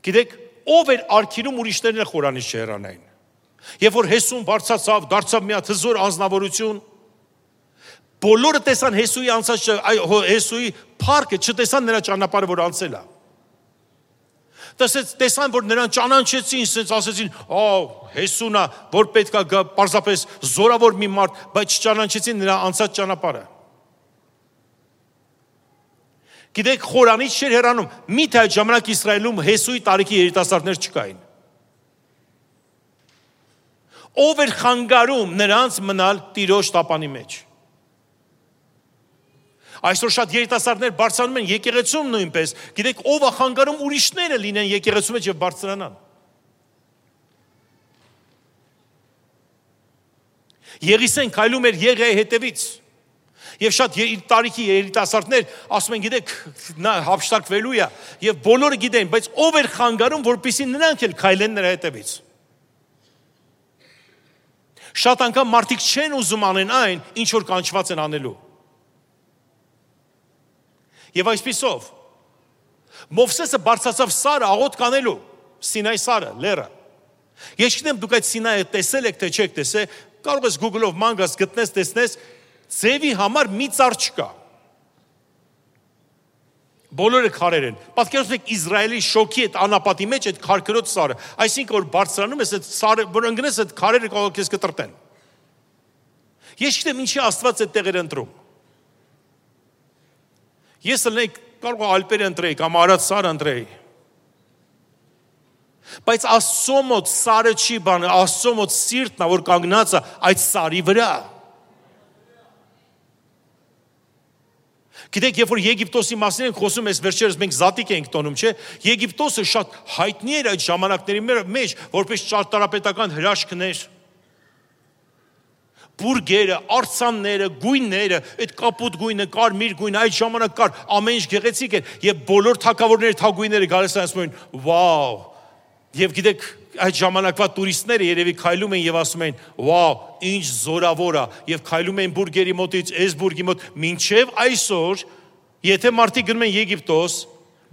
Գիտեք, ով էր արգելում ուրիշներին Խորանից չհեռանային։ Եվ որ Հեսուն բարձրացավ, դարձավ մի հատ հզոր անձնավորություն, բոլորը տեսան Հեսուի անցած, Հեսուի փառքը, չտեսան նրա ճանապարհը, որ անցել է։ Տեսան, որ նրան ճանաչեցին, ասենց ասեցին, Հեսունա, որ պետք է գա պարզապես զորավոր մի մարդ, բայց չճանաչեցին նրա անցած ճանապարհը։ Գիտեք, Խորանից չէր հեռանում, միթե այդ ժամանակ Իսրայելում Հեսուի տարիքի երիտասարդներ չկային։ Ով էր խանգարում նրանց մնալ Տիրոջ տապանի մեջ։ Այսօր շատ երիտասարդներ բարձրանում են եկեղեցում նույնպես, գիտեք, ով է խանգարում ուրիշները լինեն եկեղեցու մեջ եւ բարձրանան։ Եղիսեն քայլում էր Եղիայի հետևից։ Եվ շատ տարիքի երիտասարդներ ասում են, գիտեք, նա հափշտակվելու է, եւ բոլորը գիտեն, բայց ով էր խանգարում, որպեսզի նրանք էլ քայլեն նրա հետևից։ Շատ անգամ մարդիկ չեն ուզում անեն այն, ինչ որ կանչված են անելու։ Եվ այսպիսով Մովսեսը բարձրացավ Սարը աղոթք անելու, Սինայի Սարը, լեռը։ Ես չգիտեմ դուք այդ Սինայը տեսել եք թե չեք տեսել, կարող ես Google-ով ման գաս գտնես, տեսնես, ձևի համար մի ծառ չկա։ Բոլորը քարեր են։ Պատկերացրեք Իսրայելի շոքի այդ անապատի մեջ այդ քարքրոտ սարը, այսինքն որ բարձրանում ես այդ սարը, որ ընկնես այդ քարերը կարող ես կտրտեն։ Ես չգիտեմ ինչի Աստված այդ տեղերը ընտրում։ Ես ելնեի կարող Ալպերը ընտրեի կամ Արադ սարը ընտրեի։ Բայց Աստծո մոտ սարը չի բանը, Աստծո մոտ սիրտն է, որ կանգնած է այդ սարի վրա։ Գիտեք, երբ որ Եգիպտոսի մասին ենք խոսում, այս վերջերս մենք զատիկ ենք տոնում, չէ՞։ Եգիպտոսը շատ հայտնի էր այդ ժամանակների մեջ, որպես ճարտարապետական հրաշքներ։ Բուրգերը, արձանները, գույները, այդ կապուտ գույնը, կարմիր գույնը, այդ ժամանակ կար, ամեն ինչ գեղեցիկ էր, եւ բոլոր թագավորների թագուհիները գալիս են ասում են, «Վաու»։ Եվ գիտեք, այդ ժամանակվա տուրիստները երևի քայլում են եւ ասում են, «Վաու, ինչ զորավոր է», եւ քայլում են բուրգերի մոտից, այս բուրգի մոտ, մինչեւ այսօր, եթե մարդիկ գնում են Եգիպտոս,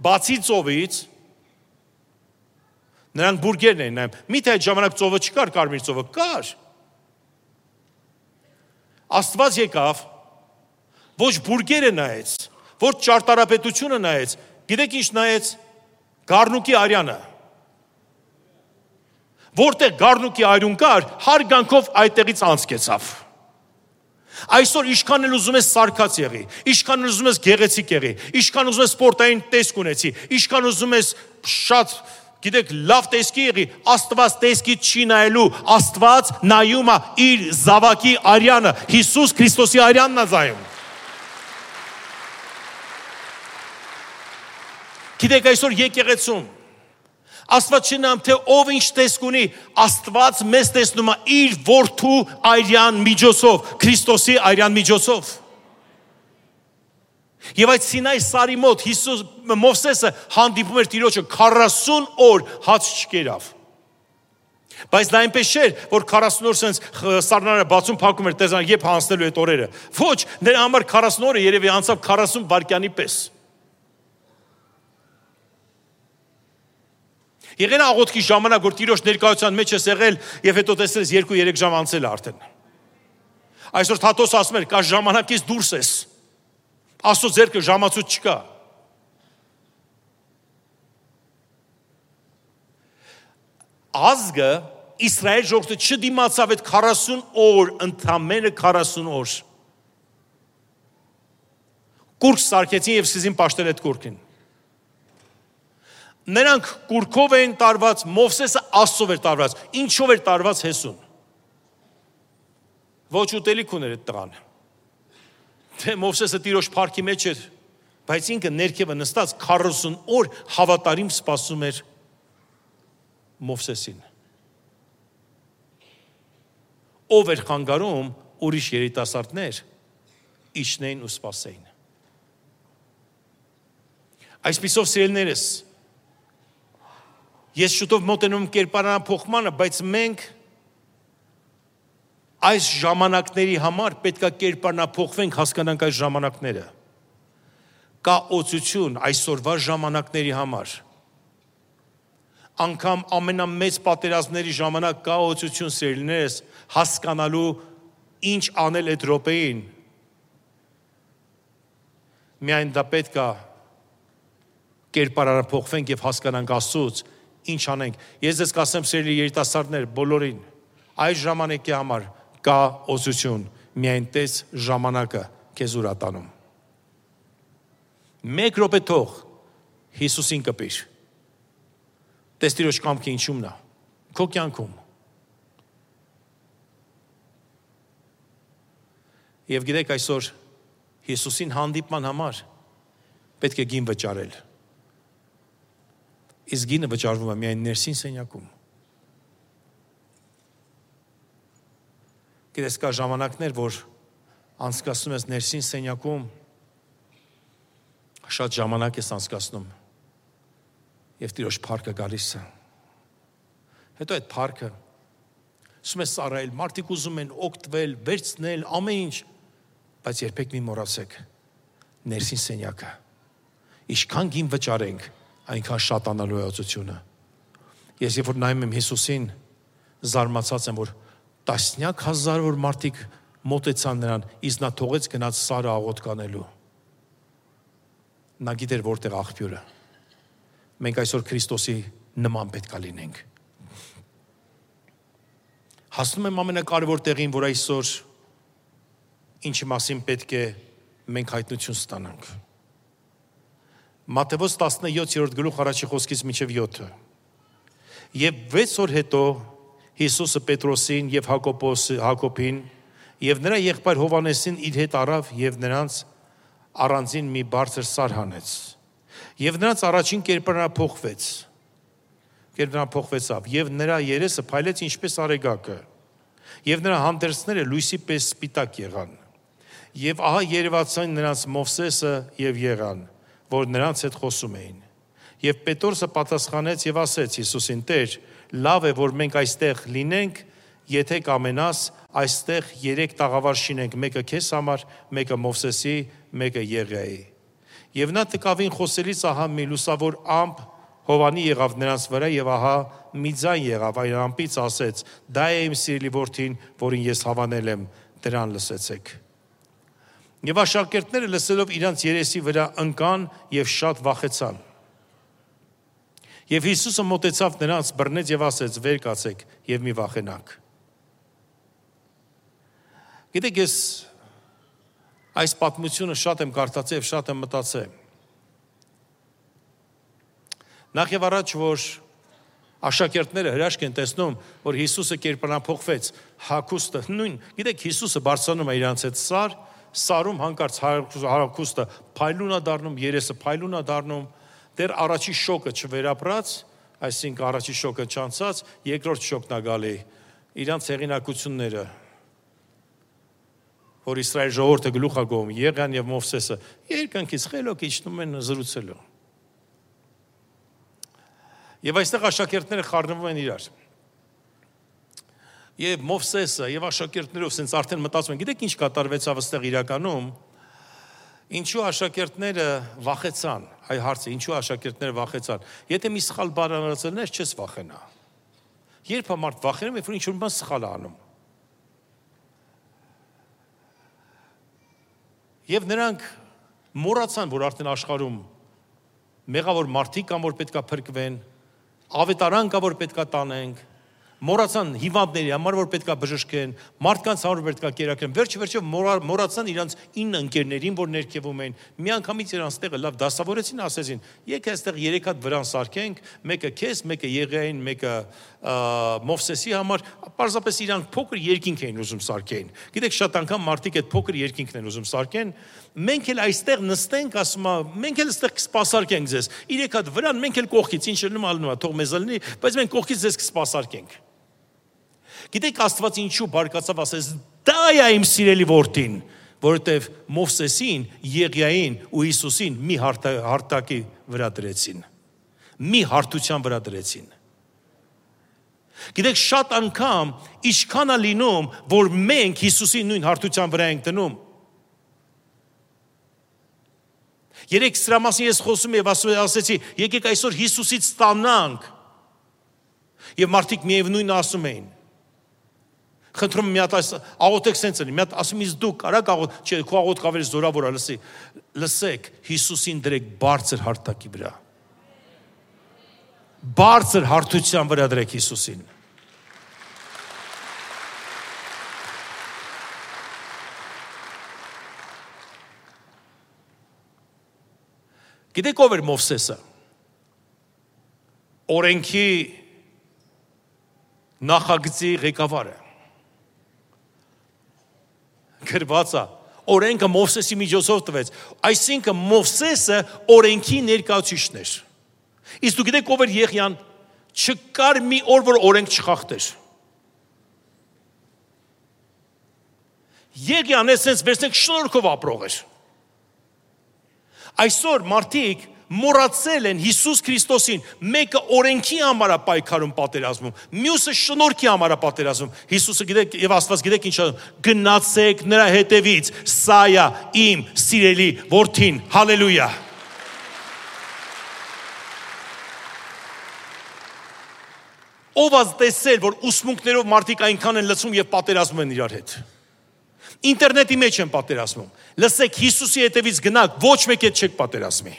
բացի ծովից, նրանք բուրգերն են նայում։ Միթե այդ ժամանակ ծովը չկար, կարմիր ծովը կար։ Աստված եկավ, ոչ բուրգերը նայեց, ոչ ճարտարապետությունը նայեց, գիտեք ինչ նայեց, Գառնուկի արյանը։ Որտեղ Գառնուկի արյուն կար, հարգանքով այդտեղից անցկեցավ։ Այսօր ինչքան էլ ուզում ես սարքած եղի, ինչքան ուզում ես գեղեցիկ եղի, ինչքան ուզում ես սպորտային տեսք ունեցի, ինչքան ուզում ես շատ, գիտեք, լավ տեսքի եղի, Աստված տեսքից չի նայելու, Աստված նայում է իր զավակի արյանը, Հիսուս Քրիստոսի արյանն է զայում։ Գիտեք, այսօր եկեղեցում Աստված չնամ թե ով ինչ տեսք ունի, Աստված մեզ տեսնում է իր որդու արյան միջոցով, Քրիստոսի արյան միջոցով։ Եվ այդ Սինայի սարի մոտ Մովսեսը հանդիպում էր Տիրոջը 40 օր հաց չկերավ։ Բայց դա այնպես չէր, որ 40 օր սենց սառնարը բացում փակում էր, տեսան երբ հանձնելու այդ օրերը։ Ոչ, նրա համար 40 օրը երևի անցավ 40 վայրկյանի պես։ Եղել աղոթքի ժամանակ, որ Տիրոջ ներկայության մեջ ես եղել եւ հետո տեսել ես 2-3 ժամ անցել արդեն։ Այսօր Թաթոս ասում էր, կա ժամանակից դուրս ես։ Աստծո ձեռքը ժամացույց չկա։ ազգը Իսրայել ժողովուրդը չդիմացավ այդ 40 օր, ընդամենը 40 օր։ Կուրք սարքեցին եւ սկսեցին պաշտել այդ կուրքին։ Նրանք կուրքով էին տարված, Մովսեսը Աստծով էր տարված։ Ինչով էր տարված հեսուն։ Ոչ ուտելիք ուներ այդ տղան։ Թե Մովսեսը տիրոջ փառքի մեջ էր, բայց ինքը ներքևը նստած 40 օր հավատարիմ սպասում էր Մովսեսին։ Ով էր խանգարում ուրիշ երիտասարդներ իջնեին ու սպասեին։ Այսպիսով սիրելիներս, ես շուտով մոտենում կերպարանափոխմանը, բայց մենք այս ժամանակների համար պետք է կերպարանափոխվենք, հասկանանք այս ժամանակները։ Կա օծություն այսօրվա ժամանակների համար։ Անկամ ամենամեծ պատերազմների ժամանակ կա օծություն սիրելիներս, հասկանալու ինչ անել այդ րոպեին։ Միայն դա պետք է կերպարանափոխվենք եւ հասկանանք Աստծուց ինչ անենք։ Ես ձեզ կասեմ սիրելի երիտասարդներ, բոլորին, այս ժամանակի համար կա օծություն, միայն տես ժամանակը քեզ ուր ատանում։ Մեկ րոպե թող Հիսուսին կպիր։ Տես Տիրոջ կամքը ինչումն է, քո կյանքում։ Եվ գիտեք այսօր Հիսուսին հանդիպման համար պետք է գին վճարել։ Իսկ գինը վճարվում է միայն ներսին սենյակում։ Գիտես կա ժամանակներ, որ անցկացնում ես ներսին սենյակում, շատ ժամանակ ես անցկացնում եւ Տիրոջ փառքը գալիս է։ Հետո այդ փառքը ասում ես ծառայել, մարդիկ ուզում են օգտվել, վերցնել, ամեն ինչ, բայց երբեք մի մոռացեք ներսին սենյակը։ Ինչքան գին վճարենք, այնքան շատանալու է օծությունը։ Ես երբ որ նայում եմ Հիսուսին, զարմացած եմ, որ տասնյակ հազարավոր մարդիկ մոտեցան նրան, իսկ նա թողեց գնաց Սարը աղոթք անելու։ Նա գիտեր որտեղ աղբյուրը։ Մենք այսօր Քրիստոսի նման պետք է լինենք։ Հասնում եմ ամենակարևոր տեղին, որ այսօր ինչի մասին պետք է մենք հայտնություն ստանանք։ Մատթեոս 17-րդ գլուխ առաջի խոսքից մինչև 7-ը։ Եվ 6 օր հետո Հիսուսը Պետրոսին եւ Հակոբին եւ նրա եղբայր Հովանեսին իր հետ առավ եւ նրանց առանձին մի բարձր սար հանեց։ Եվ նրանց առաջին կերպարանափոխվեցավ եւ նրա երեսը փայլեց ինչպես արեգակը եւ նրա հանդերձները լույսի պես սպիտակ եղան։ Եվ ահա երևացան նրանց Մովսեսը եւ Եղան, որ նրանց հետ խոսում էին։ Եվ Պետրոսը պատասխանեց եւ ասեց Հիսուսին. Տեր, լավ է, որ մենք այստեղ լինենք, եթե կամենաս, այստեղ 3 տաղավար շինենք, մեկը քեզ համար, մեկը Մովսեսի, մեկը Եղիայի։ Եվ նա տկավին խոսելիս ահա մի լուսավոր ամպ հովանի եղավ նրանց վրա եւ ահա մի ձայն եղավ, այն ամպից ասեց. Դա է իմ սիրելի որդին, որին ես հավանել եմ, դրան լսեցեք։ Եվ աշակերտները լսելով իրանց երեսի վրա ընկան եւ շատ վախեցան։ Եվ Հիսուսը մոտեցավ նրանց, բռնեց եւ ասեց. Վեր կացեք եւ մի վախենաք։ Գիտեք, ես այս պատմությունը շատ եմ կարդացել եւ շատ եմ մտածել։ Նախ եւ առաջ, որ աշակերտները հրաշք են տեսնում, որ Հիսուսը կերպարանափոխվեց, հագուստը նույն, գիտեք, Հիսուսը բարձրանում է իրանց հետ սարում հանկարծ հագուստը փայլուն է դառնում, երեսը փայլուն է դառնում, դեռ առաջի շոկը չվերապրած, այսինքն առաջի շոկը չանցած, երկրորդ շոկն է գալի, իրանց հեղինակությունները, որ Իսրայել ժողովուրդը գլուխ է գովում, Եղիան եւ Մովսեսը, երկնքից խելոք իջնում են զրուցելու։ Եվ այստեղ աշակերտները խառնվում են իրար։ Եվ Մովսեսը եւ աշակերտներով sense արդեն մտածում են, գիտեք ինչ կատարվեցավ այստեղ իրականում, ինչու աշակերտները վախեցան, այ հարցը, ինչու աշակերտները վախեցան։ Եթե մի սխալ բան անցնես, չես վախենա։ Երբ մարդ վախենում է, որ ինչ-որ բան սխալ է անում։ Եվ նրանք մոռացան, որ արդեն աշխարհում մեղավոր մարդիկ կան, որ պետքա փրկվեն, ավետարան կա, որ պետքա տանենք, մոռացան հիվանդների համար, որ պետքա բժշկեն, մարդկանց համար պետքա կերակրեն, վերջը մոռացան իրանց 9 ընկերներին, որ ներքևում են, միանգամից իրանց տեղը լավ դասավորեցին, ասեցին, եկե այստեղ 3 հատ վրան սարքենք, մեկը քեզ, մեկը Եղիային, մեկը Մովսեսի համար, պարզապես իրանք փոքր երկինք էին ուզում սարքեն։ Գիտեք, շատ անգամ մարդիկ այդ փոքր երկինքն են ուզում սարքեն, մենք էլ այստեղ նստենք, ասում է, մենք էլ այստեղ կսպասարկենք ձեզ։ 3 հատ վրան, մենք էլ կողքից, ինչ լինում, թող մեզ լինի, բայց մենք կողքից ձեզ կսպասարկենք։ Գիտեք, Աստված ինչու բարկացավ ասես, դա է իմ սիրելի որդին, որովհետև Մովսեսին, Եղիային ու Հիսուսին մի հարթակի վրա դրեցին։ Մի հարթության վրա դրեցին։ Գիտեք, շատ անգամ ինչքան է լինում, որ մենք Հիսուսի նույն հարթության վրա ենք դնում։ Երեք սրա մասին ես խոսում եմ եւ ասեցի, եկեք այսօր Հիսուսից ստանանք։ Եվ մարդիկ միևնույնն ասում էին։ Խնդրում եմ մի հատ աղոթեք սենց լինի, մի հատ ասում ես դու կարա աղոթ, չէ, քո աղոթքը ավելի զորավոր է, լսեք, Հիսուսին դրեք բարձր հարթակի վրա։ Բարձր հարթության վրա դրեք Հիսուսին։ Գիտեք ով էր Մովսեսը։ Օրենքի նախագծի ղեկավարը։ Գրված է, օրենքը Մովսեսի միջոցով տվեց, այսինքն Մովսեսը օրենքի ներկայացուցիչն էր։ Իսկ դու գիտեք ով էր Եղիան, չկար մի օր, որ օրենք չխախտեր։ Եղիան էսենց վերցնենք շնորհքով ապրող էր։ Այսօր մարդիկ մոռացել են Հիսուս Քրիստոսին, մեկը օրենքի համար է պայքարում պատերազմում, մյուսը շնորհքի համար է պատերազմում։ Հիսուսը գիտեք եւ Աստված գիտեք ինչ ասում, գնացեք նրա հետևից, սա է իմ սիրելի որդին, հալելույա։ Ով ազգ տեսել, որ ուսմունքներով մարդիկ այնքան են լցում եւ պատերազմում են իրար հետ։ Ինտերնետի մեջ են պատերազմում։ Լսեք, Հիսուսի հետևից գնաք, ոչ մեկ հետ չեք պատերազմի։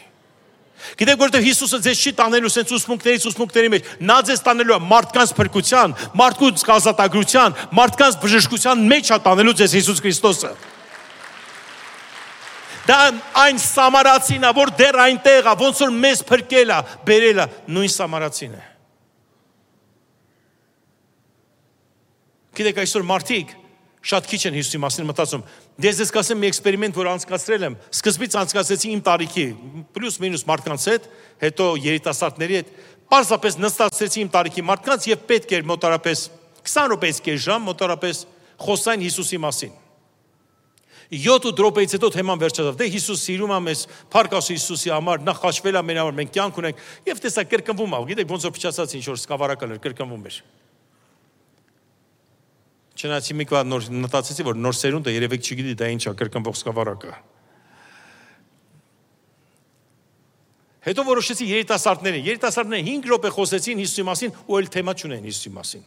Գիտեք, որովհետև Հիսուսը ձեզ չի տանելու սենց ուսմունքների մեջ, նա ձեզ տանելու է մարդկանց փրկության, մարդկանց ազատագրության, մարդկանց բժշկության մեջ է տանելու ձեզ Հիսուս Քրիստոսը։ Դա այն սամարացին է, որ դեռ այնտեղ է, ոնց որ մեզ փրկել է, բերել է, նույն սամարացին է։ Գիտեք, այսօր մարդիկ շատ քիչ են Հիսուսի մասին մտածում։ Ես կասեմ մի էքսպերիմենտ, որ անցկացրել եմ, սկզբից անցկացրեցի իմ տարիքի, պլյուս մինուս մարդկանց հետ, հետո երիտասարդների հետ, պարզապես նստացրեցի իմ տարիքի մարդկանց եւ պետք էր մոտարապես 20 րոպեից կես ժամ մոտարապես խոսային Հիսուսի մասին։ 7 րոպեից հետո թեման վերջացավ։ Դե Հիսուս սիրում է մեզ, փառք Աստծո Հիսուսի համար, նա խաչվել է մեր համար, մենք կյանք ունենք եւ տեսա կրկնվում է։ Գիտեք, ոնց որ փչացած ինչ որ սկավառակալ էր, կրկնվում էր։ Չնայած մի կողմ նոր մտածեցի, որ նոր սերունդը երևեք չգիտի դա ինչ է, կրկնվող սկավառակը։ Հետո որոշեցի երիտասարդները 5 րոպե խոսեցին Հիսուսի մասին ու այլ թեմա չունեն Հիսուսի մասին։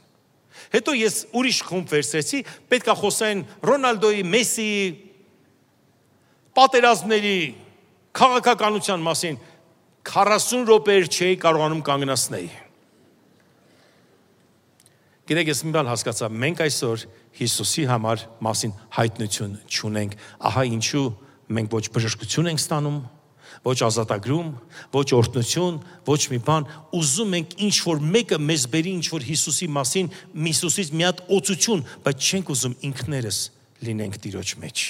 Հետո ես ուրիշ խումբ վերցրեցի, պետք է խոսային Ռոնալդոյի, Մեսսիի, պատերազմների, քաղաքականության մասին 40 րոպեեր չէի կարողանում կանգնացնել։ Գիտեք, ես մի բան հասկացա, մենք այսօր Հիսուսի համար մասին հայտնություն չունենք, ահա ինչու մենք ոչ բժշկություն ենք ստանում, ոչ ազատագրում, ոչ օրհնություն, ոչ մի բան, ուզում ենք ինչ-որ մեկը մեզ բերի ինչ-որ Հիսուսի մասին, Հիսուսից մի հատ օծություն, բայց չենք ուզում ինքներս լինենք Տիրոջ մեջ։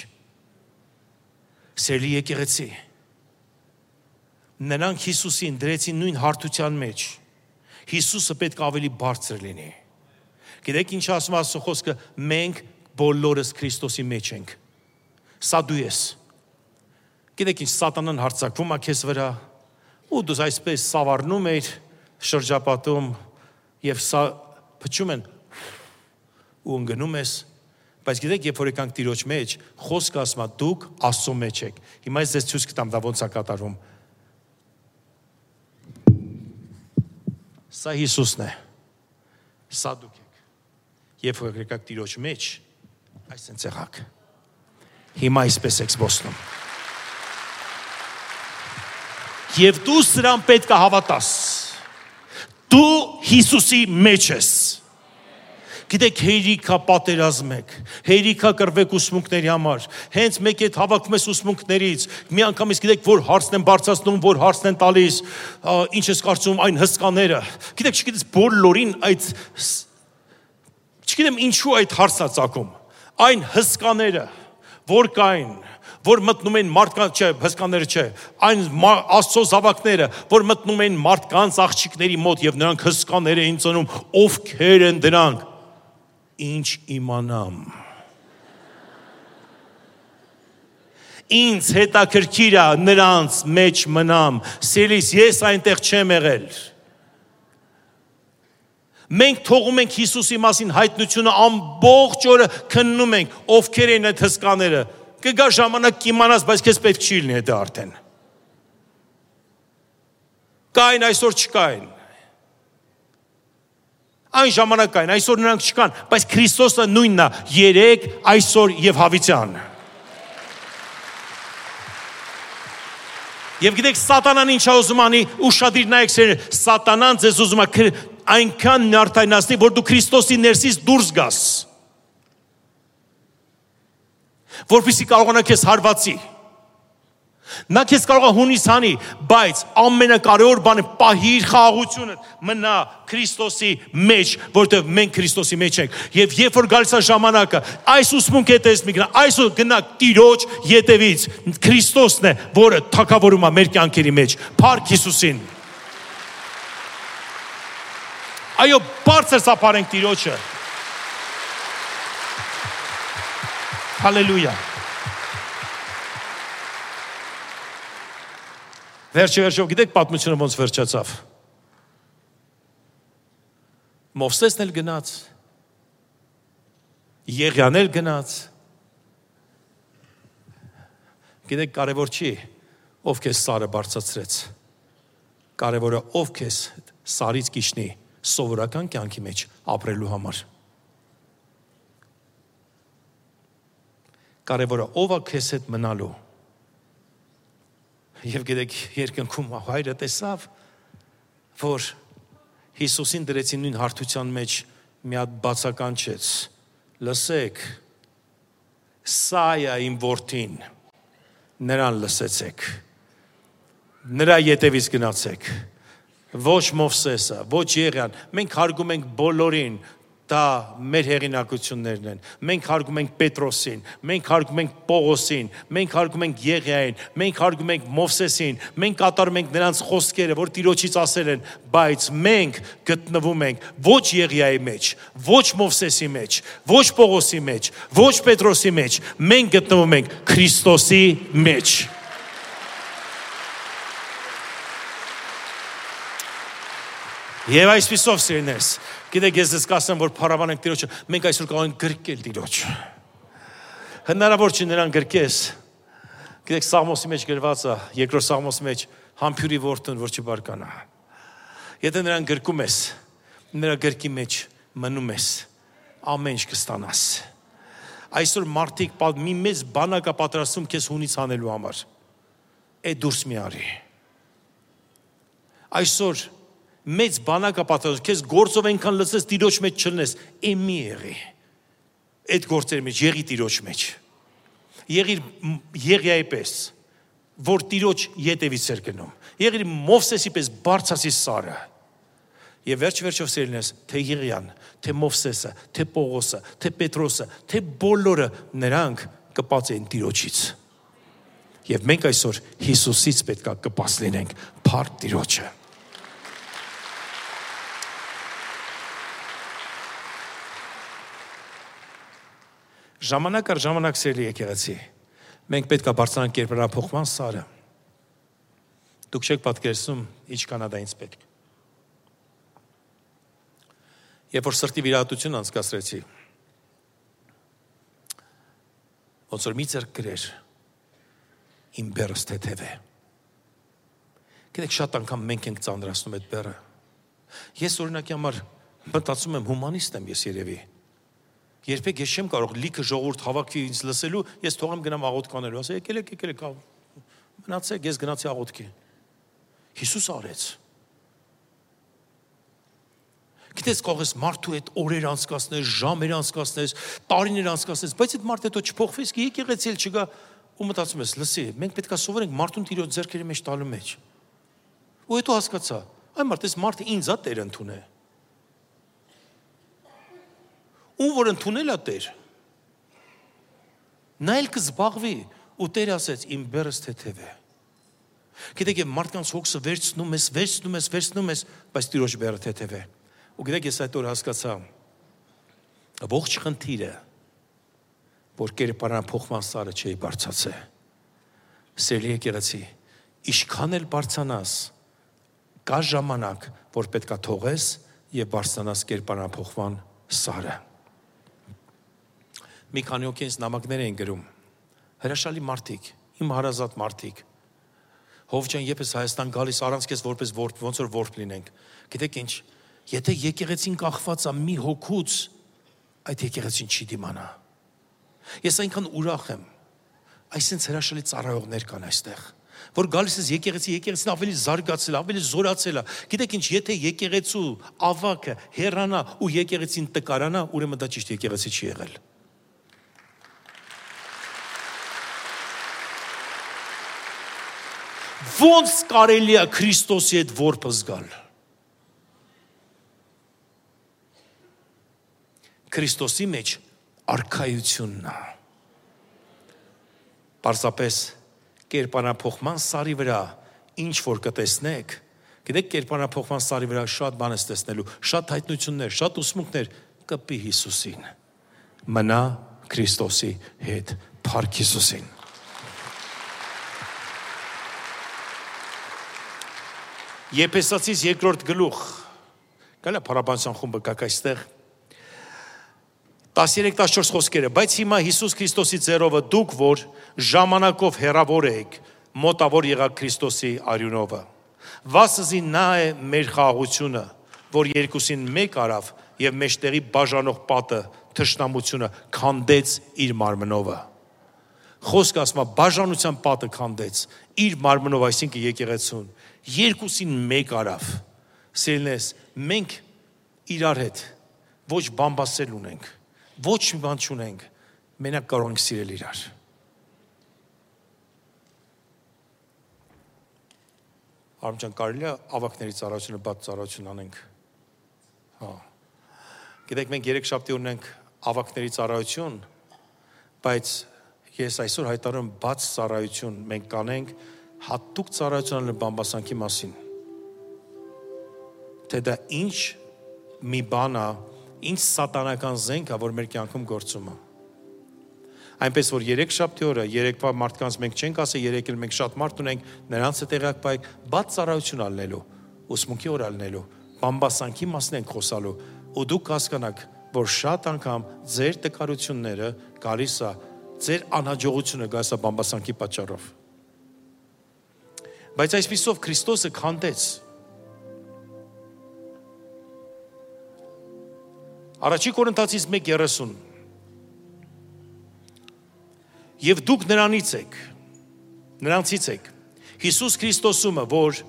Սիրելի եկեղեցի, նրանք Հիսուսին դրեցին նույն հարթության մեջ, Հիսուսը պետք է ավելի բարձր լինի։ Գիտեք ինչ ասում Աստծո խոսքը, մենք բոլորս Քրիստոսի մեջ ենք։ Սա դու ես։ Գիտեք ինչ սատանան հարձակվում է քեզ վրա, ու դու այսպես սավառնում ես շրջապատում եւ սա փչում են ու ընկնում ես, բայց գիտեք երբ որ եկանք Տիրոջ մեջ, խոսքը ասում է դուք Աստծո մեջ եք։ Հիմա ես ձեզ ցույց կտամ դա ոնց է կատարվում։ Սա Հիսուսն է։ Սա դուք եք։ Երբ որ եկաք Տիրոջ մեջ, այսպես եղաք։ Հիմա այսպես եք զբոսնում։ Եվ դու սրան պետք է հավատաս։ Դու Հիսուսի մեջ ես։ Գիտեք, հերիքա պատերազմեք, հերիքա կռվեք ուսմունքների համար, հենց մեկ հետ հավաքում ես ուսմունքներից, մի անգամից գիտեք, որ հարցն են բարձրացնում, որ հարցն են տալիս, ինչ ես կարծում այն հսկաները, գիտեք, չգիտես բոլորին այդ, չգիտեմ ինչու այդ հարցն է ծագում, այն հսկաները, որ կային, որ մտնում են մարդկանց, չէ, հսկաները չէ, այն Աստծո զավակները, որ մտնում են մարդկանց աղջիկների մոտ եւ նրանք հսկաներ էին ծնում, ովքեր են դրանք, ինչ իմանամ։ Ինձ հետաքրքիր է նրանց մեջ մնամ, սիրելիս, ես այնտեղ չեմ եղել։ Մենք թողում ենք Հիսուսի մասին հայտնությունը ամբողջ օրը քննում ենք, ովքեր են այդ հսկաները։ Կգա ժամանակ կիմանաս, բայց քեզ պետք չի լինի դա արդեն։ Կային, այսօր չկային։ Այն ժամանակ կային, այսօր նրանք չկան, բայց Քրիստոսը նույնն է, երեկ, այսօր եւ հավիտյան։ Եվ գիտեք, սատանան ինչ է ուզում անի, ուշադիր նայեք սերներ, սատանան ձեզ ուզում է այնքան նյարդայնացնի, որ դու Քրիստոսի ներսից դուրս գաս։ Որպեսզի կարողանա քեզ հարվածի։ Նա քեզ կարող է հունից հանի, բայց ամենակարևոր բանը պահիր խաղաղությունը, մնա Քրիստոսի մեջ, որտեղ մենք Քրիստոսի մեջ ենք։ Եվ երբ որ գալիս է ժամանակը, այս ուսմունքի հետ ես մի գնա, այսօր գնա Տիրոջ ետևից, Քրիստոսն է, որը թագավորում է մեր կյանքերի մեջ, փառք Հիսուսին։ Այո, բարձր սափարենք Տիրոջը։ Հալելույա։ Վերջով գիտեք պատմությունը ոնց վերջացավ։ Մովսեսն էլ գնաց, Եղիան էլ գնաց։ Գիտեք, կարևոր չի, ով քեզ սարը բարձրացրեց։ Կարևորը ով քեզ սարից կիջնի սովորական կյանքի մեջ ապրելու համար։ Կարևորը ով է քեզ հետ մնալու։ Եվ գիտեք, երկնքում հայրը տեսավ, որ Հիսուսին դրեցին նույն հարթության մեջ մի հատ բացականչեց, լսեք, սա է իմ որդին, նրան լսեցեք, նրա ետևից գնացեք, ոչ Մովսեսը, ոչ Եղիան, մենք հարգում ենք բոլորին, դա մեր հեղինակություններն են, մենք հարգում ենք Պետրոսին, մենք հարգում ենք Պողոսին, մենք հարգում ենք Եղիային, մենք հարգում ենք Մովսեսին, մենք կատարում ենք նրանց խոսքերը, որ Տիրոջից ասել են, բայց մենք գտնվում ենք ոչ Եղիայի մեջ, ոչ Մովսեսի մեջ, ոչ Պողոսի մեջ, ոչ Պետրոսի մեջ, մենք գտնվում ենք Քրիստոսի մեջ։ Եվ այսպիսով սիրելիներս, գիտեք, ես ձեզ կասեմ, որ փառաբանենք Տիրոջը, մենք այսօր կարող ենք գրկել Տիրոջը։ Հնարավոր չի նրան գրկես։ Գիտեք, Սաղմոսի մեջ գրված է, երկրորդ Սաղմոսի մեջ, համբյուրի որդուն, որ չբարկանա։ Եթե նրան գրկում ես, նրա գրկի մեջ մնում ես, ամեն ինչ կստանաս։ Այսօր մարդիկ մի մեծ բանակ է պատրաստում քեզ հունից հանելու համար։ Այդ դուրս մի արի։ Այսօր մեծ բանակա պատրաստում, քեզ գործով այնքան լսես Տիրոջ մեջ չլնես, մի եղի, այդ գործերի մեջ, եղի Տիրոջ մեջ, եղիր Եղիայի պես, որ Տիրոջ ետևից էր գնում, եղիր Մովսեսի պես բարձրացի սարը, եւ վերջով սիրելիներս, թե Եղիան, թե Մովսեսը, թե Պողոսը, թե Պետրոսը, թե բոլորը նրանք կպած էին Տիրոջից, եւ մենք այսօր Հիսուսից պետք է կպած լինենք, փառք Տիրոջը։ Ժամանակ առ ժամանակ սիրելի եկեղեցի, մենք պետք է բարձրանանք կերպարանափոխման սարը։ Դուք չեք պատկերացնում, ինչքան է դա ինձ պետք։ Երբ որ սրտի վիրահատություն անցկացրեցի, ոնց որ մի ձեռք գրեր, իմ բեռս թեթև է։ Գիտեք, շատ անգամ մենք ենք ծանրացնում այդ բեռը։ Ես օրինակի համար մտածում եմ հումանիստ եմ ես երևի։ Երբեք ես չեմ կարող լիքը ժողովուրդ հավաքի ինձ լսելու, ես թողեմ գնամ աղոթքանելու, ասա եկեք, մնացեք, ես գնացի աղոթքի։ Հիսուս արեց։ Գիտես, կարող ես մարդու հետ օրեր անցկացնես, ժամեր անցկացնես, տարիներ անցկացնես, բայց այդ մարդը հետո չփոխվես, եկեղեցի էլ չգա ու մտածում ես, լսի, մենք պետք է սովորենք մարդուն Տիրոջ ձեռքերի մեջ տալու մեջ։ Ու հետո հասկացա, այ մարդ, այս մարդը ինձ է Տեր ընդունել։ Ում որ ընդունել է Տեր, նա էլ կզբաղվի, ու Տերը ասեց, իմ բեռս թեթև է։ Գիտեք, մարդկանց հոգսը վերցնում ես, բայց Տիրոջ բեռը թեթև է։ Ու գիտեք, ես այդ օր հասկացա, ողջ խնդիրը, որ կերպարանափոխման սարը չի բարձրացել։ Սիրելի եկեղեցի, ինչքան էլ բարձրանաս, կա ժամանակ, որ պետք է թողես եւ բարձրանաս կերպարանափոխման սարը։ Մի քանի օր ինձ նամակներ էին գրում, հրաշալի մարդիկ, իմ հարազատ մարդիկ։ Հով ջան, երբ ես Հայաստան գալիս, առանց քեզ որպես ոնց որ որբ լինենք։ Գիտեք ինչ, եթե եկեղեցին կախված է մի հոգուց, այդ եկեղեցին չի դիմանա։ Ես այնքան ուրախ եմ, այսինքն հրաշալի ծառայողներ կան այստեղ, որ գալիս ես եկեղեցին ավելի զարգացել, ավելի զորացել է։ Գիտեք ինչ, եթե եկեղեցու ավակը հեռանա ու եկեղեցին տկարանա, ուրեմն դա ճիշտ եկեղեցի չի եղել։ Ոնց կարելի է Քրիստոսի հետ որբ զգալ։ Քրիստոսի մեջ արքայությունն է։ Պարզապես կերպարանափոխման սարի վրա ինչ որ կտեսնեք, գիտեք, կերպարանափոխման սարի վրա շատ բան ես տեսնելու, շատ հայտնություններ, շատ ուսմունքներ, կպի Հիսուսին։ Մնա Քրիստոսի հետ, փառք Հիսուսին։ Եփեսացիս 2-րդ գլուխ։ Գալա փառաբանության խումբը կակ այստեղ։ 13-14 խոսքերը, բայց հիմա Հիսուս Քրիստոսի ձեռովը դուք, որ ժամանակով հեռավոր եք, մոտավոր եղաք Քրիստոսի արյունովը։ Վասզի նա է մեր խաղաղությունը, որ երկուսին մեկ արավ եւ մեջտեղի բաժանող պատը, թշնամությունը քանդեց իր մարմնովը։ Խոսքը ասում է բաժանության պատը քանդեց իր մարմնով, այսինքն եկեղեցուն, երկուսին մեկ արավ։ Սիրելիներս, մենք իրար հետ ոչ բամբասել ունենք, ոչ մի բան չունենք, մենակ կարող ենք սիրել իրար։ Արմջան, կարելի է ավակների ծառայությունը բաց ծառայություն անենք։ Հա։ Գիտեք, մենք երեքշաբթի ունենք ավակների ծառայություն, բայց ես այսօր հայտարարում բաց ծառայություն մենք կանենք հատուկ ծառայություն անելու բամբասանքի մասին։ Թե դա ինչ մի բան է, ինչ սատանական զենք է, որ մեր կյանքում գործում է։ Այնպես որ երեքշաբթի օրը, երեկվա մարդկանց մենք չենք ասել, երեկ էլ մենք շատ մարդ ունենք, նրանց հետ տեղյակ բայ բաց ծառայություն ալնելու, ուսմունքի օր ալնելու, բամբասանքի մասն ենք խոսալու, ու դուք հասկանաք, որ շատ անգամ ձեր տկարությունները գալիս է, ձեր անհաջողությունը գալիս է բամբասանքի պատճառով։ Բայց այսպիսով Քրիստոսը քանդեց։ Առաջի Կորինթացիս 1:30 Եվ դուք նրանցից եք, Հիսուս Քրիստոսումը, որ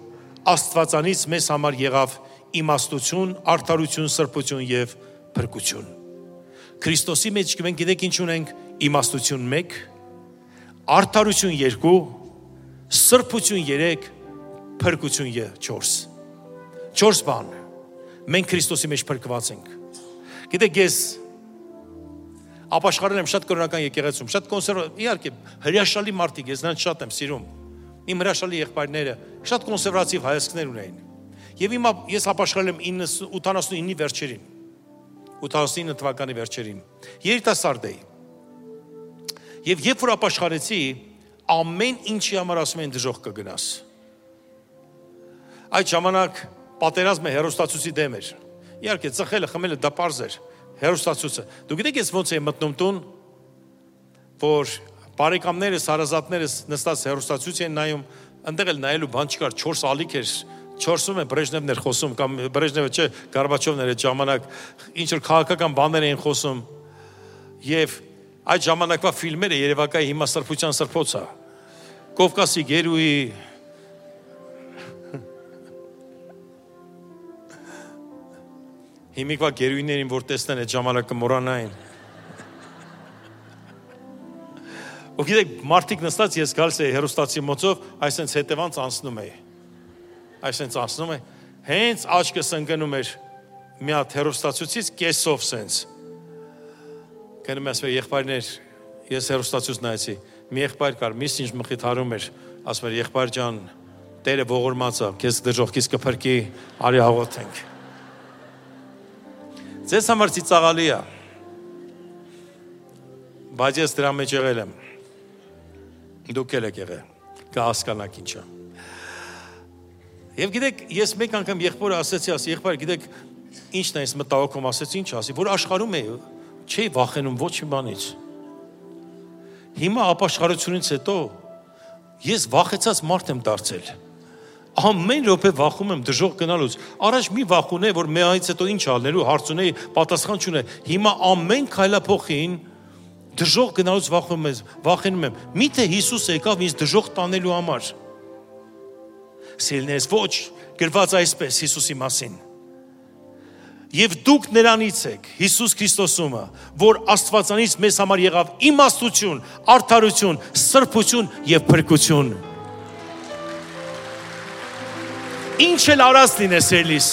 Աստվածանից մեզ համար եղավ իմաստություն, արդարություն, սրբություն եւ փրկություն։ Քրիստոսի մեջ մենք գիտեք ինչ ունենք, իմաստություն 1, արդարություն 2, սրբություն 3, փրկություն 4։ 4 բան։ Մենք Քրիստոսի մեջ փրկված ենք։ Գիտեք, ես ապաշխարել եմ շատ կրոնական եկեղեցում, շատ իհարկե հրաշալի մարդիկ, ես նրանց շատ եմ սիրում։ Իմ հրաշալի եղբայրները շատ կոնսերվատիվ հայացքներ ունեին։ Եվ ես ապաշխարել եմ 89-ի վերջերին, 89 թվականի վերջերին, երիտասարդ էի։ Եվ երբ որ ապաշխարեցի, ամեն ինչի համար ասում են դժոխք կգնաս։ Այդ ժամանակ պատերազմը հեռուստացույցի դեմ էր։ Իհարկե ծխելը, խմելը դա պարզ էր, հեռուստացույցը։ Դու գիտեք ես ոնց եմ մտնում տուն, որ բարեկամներս, հարազատներս նստած հեռուստացույց են նայում, այնտեղ էլ նայելու բան չկար, 4 ալիք էր, 4-ում է Բրեժնևն էր խոսում, կամ Բրեժնևը չէ, Գորբաչովն էր այդ ժամանակ, ինչ որ քաղաքական բաներ էին խոսում։ Եվ այդ ժամանակվա ֆիլմերը երևակայի հիմա սրբության սրբոց է։ Կովկասի գերուի Հիմիկվա գերույներին, որ տեսնեն այդ ժամանակը մոռանային։ Ու գիտեք, մարդիկ նստած ես գալիս էի հեռուստացի մոցով, այսենց հետևանց անցնում էի։ Այսենց անցնում էի, հենց աչքս ընկնում էր մի հատ հեռուստացույցից կեսով սենց։ Գնում ասում եմ, եղբայրներ, ես հեռուստացույց նայեցի, մի եղբայր կար, միս ինչ մխիթարում էր, ասում էր, եղբայր ջան, Տերը ողորմած է, քեզ դժոխքից կփրկի, արի աղոթենք։ Ձեզ համար ծիծաղալի է, բայց ես դրա մեջ եղել եմ, դուք էլ եք եղել, կհասկանաք ինչա։ Եվ գիտեք, ես մեկ անգամ եղբորը ասեցի, եղբայր, գիտեք, ինչն է ես մտահոգում, ասեցի, ինչ ասի, որ աշխարհում է, չի վախենում ոչ մի բանից։ Հիմա ապաշխարությունից հետո ես վախեցած մարդ եմ դարձել։ Ամեն րոպե վախում եմ դժոխք գնալուց։ Առաջ մի վախ ունեի, որ մեայից հետո ինչ անելու, հարց ունեի, պատասխան չունեի։ Հիմա ամեն քայլափոխին դժոխք գնալուց վախենում եմ։ Միթե Հիսուս եկավ ինձ դժոխք տանելու համար։ Սիրելիներս, ոչ, գրված այսպես Հիսուսի մասին։ Եվ դուք նրանից եք, Հիսուս Քրիստոսումը, որ Աստվածանից մեզ համար եղավ իմաստություն, արդարություն, սրբություն եւ փրկություն։ Ինչ էլ արած լինես ելիս։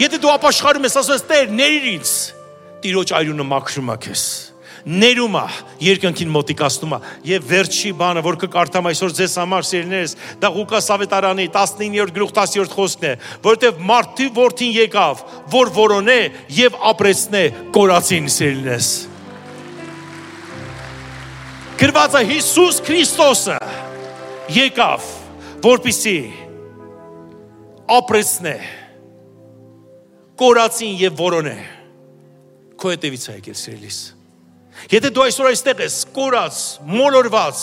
Եթե դու ապաշխարում ես, ասես Տեր, ների ինձ, Տիրոջ այրունը մաքրում է քեզ։ Ներում է, երկնքին մոտիկացնում է։ Եվ վերջի բանը, որ կկարդամ այսօր ձեզ համար, սիրելիներս, դա Ղուկաս ավետարանի 19-րդ գլուխ 10-րդ խոսքն է, որովհետև մարդու որդին եկավ, որ որոնե եւ ապրեցնե կորածին, սիրելիներս։ Գրված է Հիսուս Քրիստոսը եկավ, որպեսզի ապրեցնե կորածին եւ որոնե։ Քո հետևից է եկել, սիրելիս։ Եթե դու այսօր այստեղ ես, կորած, մոլորված,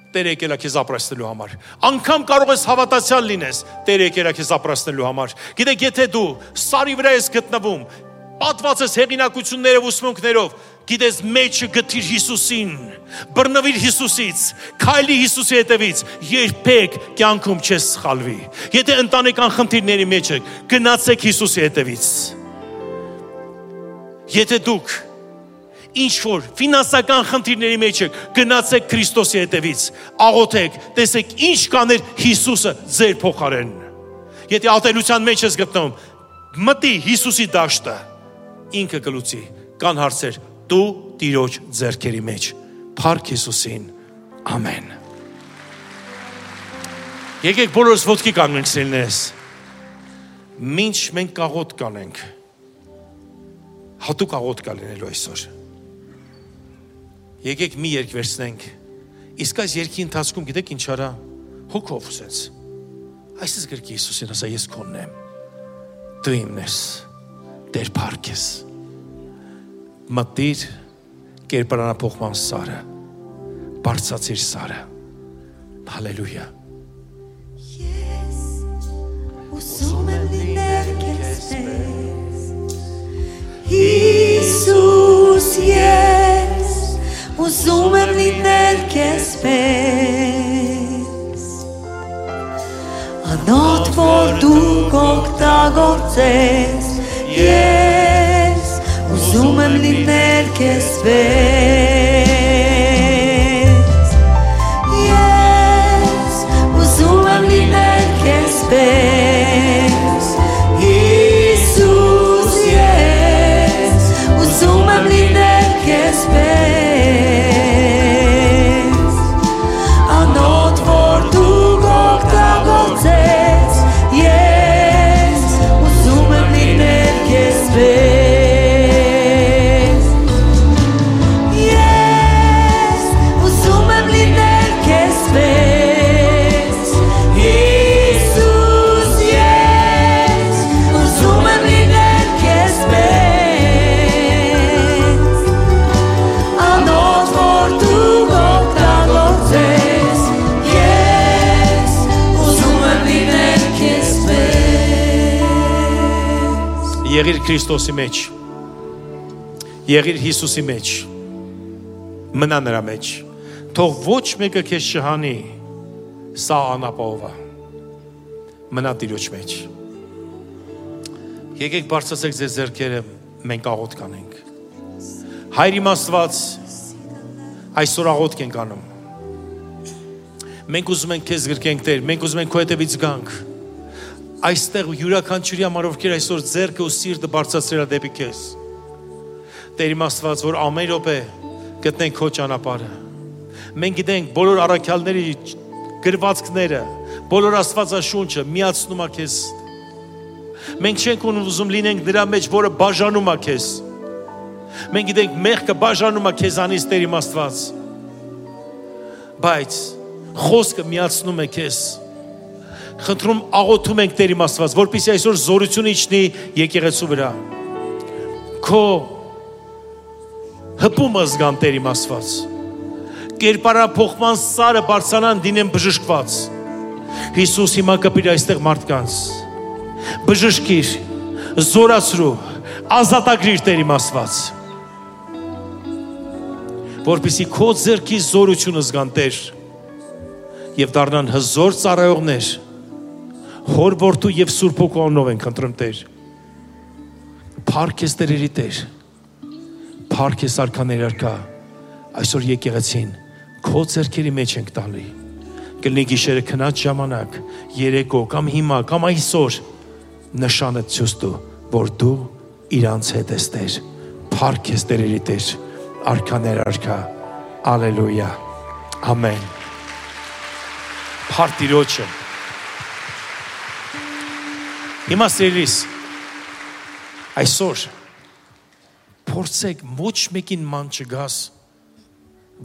Տերը եկել է քեզ ապրեցնելու համար։ Անկամ կարող ես հավատացյալ լինես, Տերը եկել է քեզ ապրեցնելու համար։ Գիտեք, եթե դու սարի վրա ես գտնվում, պատված ես հեղինակություններով ու սմունքներով, գիտես, մեջը գտիր Հիսուսին, բռնվիր Հիսուսից, քայլի Հիսուսի հետևից, երբեք կյանքում չես սխալվի։ Եթե ընտանեկան խնդիրների մեջ եք, գնացեք Հիսուսի հետևից։ Եթե դուք ինչ-որ ֆինանսական խնդիրների մեջ եք, գնացեք Քրիստոսի հետևից, աղոթեք, տեսեք ինչ կաներ Հիսուսը ձեր փոխարեն։ Եթե ատելության մեջ ես գտնվում, մտի Հիսուսի դաշտը, ինքը կլուծի, կան հարցեր, դու Տիրոջ ձեռքերի մեջ, փառք Հիսուսին, ամեն։ Եկեք բոլորս ոտքի կանգնենք, սիրելիներս, մինչ մենք աղոթք կանենք, հատուկ աղոթք լինելու այսօր։ Եկեք մի երգ վերցնենք, իսկ այս երգի ընթացքում գիտեք ինչ արա, հոգով սենց, այսպես գրքի Հիսուսին ասա, ես քոնն եմ, դու իմն ես, Տեր փառք ես, մտիր կերպարանափոխման սարը, բարձրացիր սարը, հալելույա։ Ես ուսում եմ լինել քեզ պես, Հիսուս, ես ուզում եմ լինել քեզ պես, անոթ որ դու կօգտագործես, ես ուզում եմ լինել քեզ պես, ես ուզում եմ լինել քեզ պես, Հիսուս, ես ուզում եմ լինել քեզ պես, անոթ որ դու կօգտագործես, ես ուզում եմ լինել քեզ պես, ես ուզում եմ լինել քեզ պես, Հիսուս, ես ուզում եմ լինել քեզ պես, անոթ որ դու կօգտագործես, ես ուզում եմ լինել քեզ պես։ Եղիր Քրիստոսի մեջ, եղիր Հիսուսի մեջ, մնա նրա մեջ, թող ոչ մեկը քեզ չհանի, սա անապահով է, մնա Տիրոջ մեջ։ Եկեք բարձրացեք ձեր ձեռքերը, մենք աղոթք կանենք։ Հայր իմ Աստված, այսօր աղոթք ենք անում։ Մենք ուզում ենք քեզ գրկենք, Տեր, մենք ուզում ենք քո հետևից գանք։ Այստեղ յուրաքանչյուրի համար ովքեր այսօր ձեռքը ու սիրտը բարձրացրել է դեպի քեզ։ Տեր իմ Աստված, որ ամեն րոպե գտնենք քո ճանապարհը։ Մենք գիտենք բոլոր առաքյալների գրվածքները, բոլոր Աստվածաշունչը միացնում է քեզ։ Մենք չենք ուզում լինենք նրա մեջ, որը բաժանում է քեզ։ Մենք գիտենք մեղքը բաժանում է քեզանից, Տեր իմ Աստված։ Բայց խոսքը միացնում է քեզ։ Խնդրում աղոթում ենք, Տեր իմ Աստված, որպեսզի այսօր զորություն իջնի եկեղեցու վրա։ Քո հպումը զգան, Տեր իմ Աստված։ Կերպարափոխման սարը բարձրանան դինեն բժշկված։ Հիսուս հիմա կպիր այստեղ մարդկանց։ Բժշկիր, զորացրու, ազատագրիր, Տեր իմ Աստված։ Որպեսզի քո ձեռքի զորությունը զգան, Տեր, եւ դառնան հզոր ծառայողներ, Հոր որդու եւ Սուրբ Հոգու անունով ենք խնդրում, Տեր։ Փառք ես Տերերի Տեր, փառք ես արքաների արքա, այսօր եկեղեցին քո ձեռքերի մեջ ենք տալի։ Կլինի գիշերը քնած ժամանակ, երեկո կամ հիմա կամ այսօր նշանը ցույց տու, որ դու իրանց հետ ես, Տեր։ Փառք ես Տերերի Տեր, արքաներ արքա, ալելույա, ամեն։ Փառք Տիրոջը։ Հիմա սիրելիս, այսօր փորձեք ոչ մեկին ման չգաս,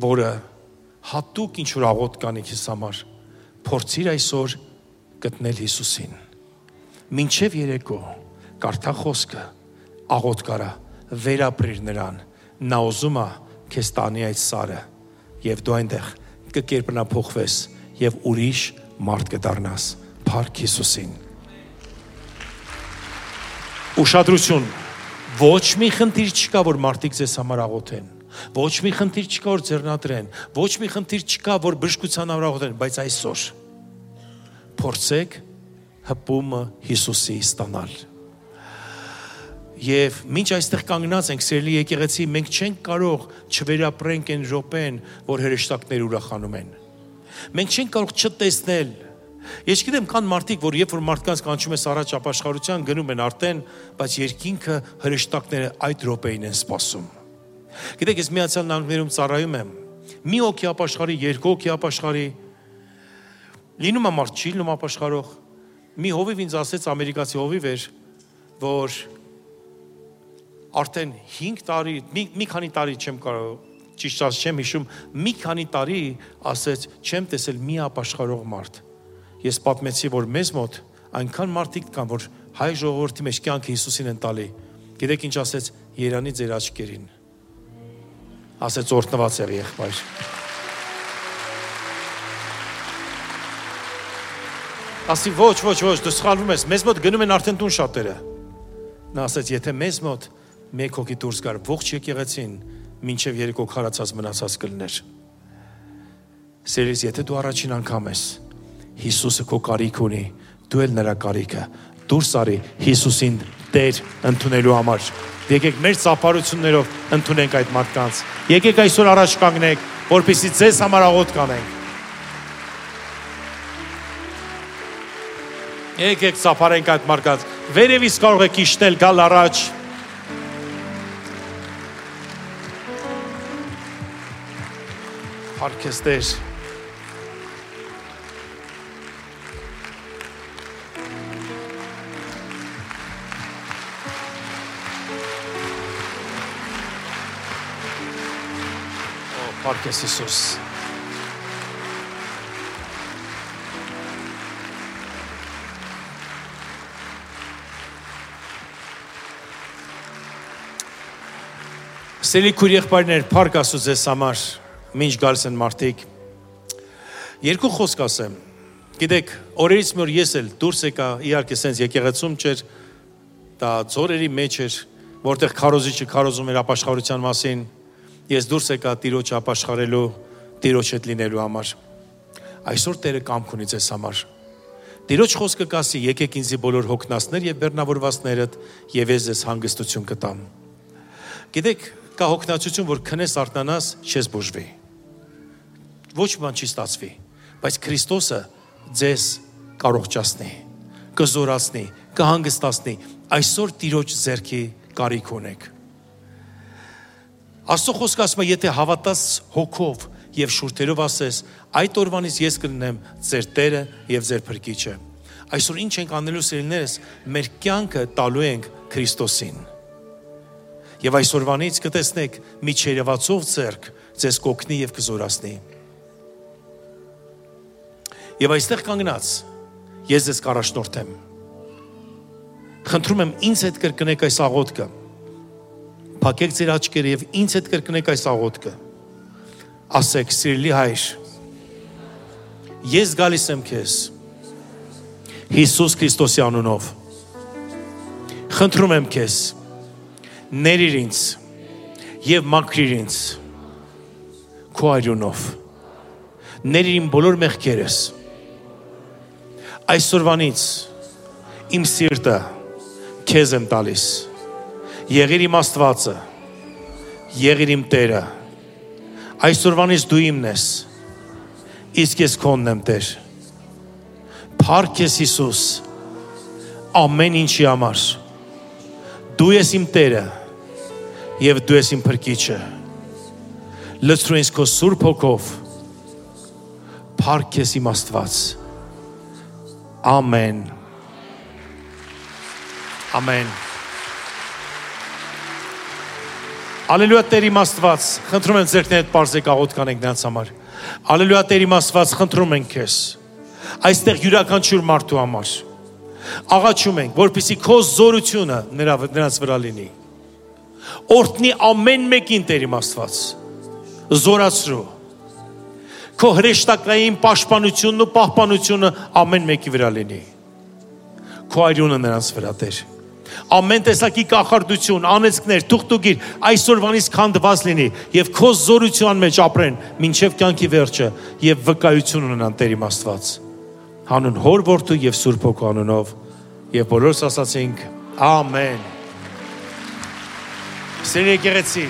որը հատուկ ինչ-որ աղոթք կանի քեզ համար, փորձիր այսօր գտնել Հիսուսին։ Մինչև երեկո կարդա խոսքը, աղոթք արա, վերապրիր նրան, նա ուզում է քեզ տանի այդ սարը, եւ դու այնտեղ կկերպնափոխվես եւ ուրիշ մարդ կդառնաս։ Փառք Հիսուսին։ Ուշադրություն, ոչ մի խնդիր չկա, որ մարդիկ ձեզ համար աղոթեն, ոչ մի խնդիր չկա, որ ձեռնադրեն, ոչ մի խնդիր չկա, որ բժշկության համար աղոթեն, բայց այսօր փորձեք հպումը Հիսուսի ստանալ։ Եվ մինչ այստեղ կանգնած ենք, սիրելի եկեղեցի, մենք չենք կարող չվերապրենք այն րոպեն, որ հրեշտակները ուրախանում են։ Մենք չենք կարող չտեսնել։ Ես գիտեմ, կան մարդիկ, որ երբ որ մարդկանց կանչում ես առաջ ապաշխարության, գնում են արդեն, բայց երկինքը հրեշտակները այդ րոպեին են սպասում։ Գիտեք, ես Միացյալ Նահանգներում ծառայում եմ։ Մի հոգի ապաշխարի, երկու հոգի ապաշխարի։ Լինում է մարդ չի լինում ապաշխարող։ Մի հովիվ ինձ ասեց, ամերիկացի հովիվ էր, որ արդեն 5 տարի, մի քանի տարի չեմ կարող, ճիշտ չեմ հիշում, մի քանի տարի ասեց, չեմ տեսել մի ապաշխարող մարդ։ Ես պատմեցի, որ մեզ մոտ այնքան մարդիկ կան, որ հայ ժողովրդի մեջ կյանքը Հիսուսին են տալի։ Գիտեք ինչ ասեց, Երանի ձեր աչքերին։ Ասեց օրհնված եղի եղբայր։ Ասի ոչ, դու սխալվում ես, մեզ մոտ գնում են արդեն տուն շատերը։ Նա ասեց, եթե մեզ մոտ մեկ հոգի դուրս գար, ողջ եկեղեցին մինչև երեկո քարացած մնացած կլներ։ Սիրելիս, եթե դու առաջին անգամ ես, Հիսուսը քո կարիք ունի, դու էլ նրա կարիքը, դուրս արի Հիսուսին Տեր ընդունելու համար։ Եկեք մեր ծափարություններով ընդունենք այդ մարդկանց։ Եկեք այսօր առաջ կանգնենք, որպեսզի ձեզ համար աղոթք կանենք։ Եկեք ծափարենք այդ մարդկանց։ Վերևից կարող եք իջնել, գալ առաջ։ Փառք ես Տեր։ Փառք ես Հիսուս։ Սիրելի քույր եղբայրներ, փառք Աստծո ձեզ համար, մինչ գալիս են մարդիկ։ Երկու խոսք ասեմ։ Գիտեք, օրերից մի օր ես էլ դուրս եկա, իհարկե սենց եկեղեցում չէր, դա ձորերի մեջ էր, որտեղ քարոզիչը քարոզում էր ապաշխարության մասին։ Ես դուրս եկա Տիրոջը ապաշխարելու, Տիրոջ հետ լինելու համար։ Այսօր Տերը կամք ունի ձեզ համար։ Տիրոջ խոսքը կասի. եկեք ինձի բոլոր հոգնածներ եւ բեռնավորվածներդ, եւ ես ձեզ հանգստություն կտամ։ Գիտեք, կա հոգնածություն, որ քնես արթնանաս, չես բուժվի։ Ոչ բան չի ստացվի, բայց Քրիստոսը ձեզ կարողջացնի, կզորացնի, կհանգստացնի։ Այսօր Տիրոջ ձեռքի կարիք ունեք։ Աստծո խոսքը ասում է, եթե հավատաս հոգով եւ շուրթերով ասես, այդ օրվանից ես կլինեմ ձեր Տերը եւ ձեր Փրկիչը։ Այսօր ինչ ենք անելու սիրելիներս, մեր կյանքը տալու ենք Քրիստոսին։ Եվ այսօրվանից կտեսնեք մի չերևացող ձեռք ձեզ կօգնի եւ կզորացնի։ Եվ այստեղ կանգնած ես ձեզ կառաջնորդեմ։ Խնդրում եմ ինձ հետ կրկնեք այս աղոթքը։ Փակեք ձեր աչքերը եւ ինձ հետ կրկնեք այս աղոթքը։ Ասեք, սիրելի Հայր, ես գալիս եմ քեզ Հիսուս Քրիստոսի անունով։ Խնդրում եմ քեզ, ներիր ինձ եւ մաքրիր ինձ քո արյունով։ Ներիր իմ բոլոր մեղքերս։ Այսօրվանից իմ սիրտը քեզ եմ տալիս։ Եղիր իմ Աստվածը, եղիր իմ Տերը։ Այսօրվանից դու իմն ես, իսկ ես քոնն եմ Տեր։ Փառք ես Հիսուս, ամեն ինչի համար։ Դու ես իմ Տերը եւ դու ես իմ Փրկիչը։ Լցրու ինձ քո Սուրբ Հոգով։ Փառք ես իմ Աստված։ Ամեն։ Ամեն։ Ալելույա Տեր իմ Աստված, խնդրում եմ ձերքներդ պարզեք աղոթք անենք նրանց համար։ Ալելույա Տեր իմ Աստված, խնդրում ենք քեզ։ Այստեղ յուրաքանչյուր մարդու համար աղաչում ենք, որպեսզի քո զորությունը նրանց վրա լինի։ Օրհնի ամեն մեկին Տեր իմ Աստված։ Զորացրու։ Քո հրեշտակային պաշտպանությունն ու պահպանությունը ամեն մեկի վրա լինի։ Քո արյունը նրանց վրա Տեր։ Ամեն տեսակի կախարդություն, անեծքներ, թուղթուգիր այսօրվանից քանդված լինի եւ քո զորության մեջ ապրեն մինչեւ կյանքի վերջը եւ վկայություն ունենան Տեր իմ Աստված։ Հանուն Հոր Որդու եւ Սուրբ Հոգու անունով եւ բոլորս ասացինք ամեն։ Սիրելի եկեղեցի,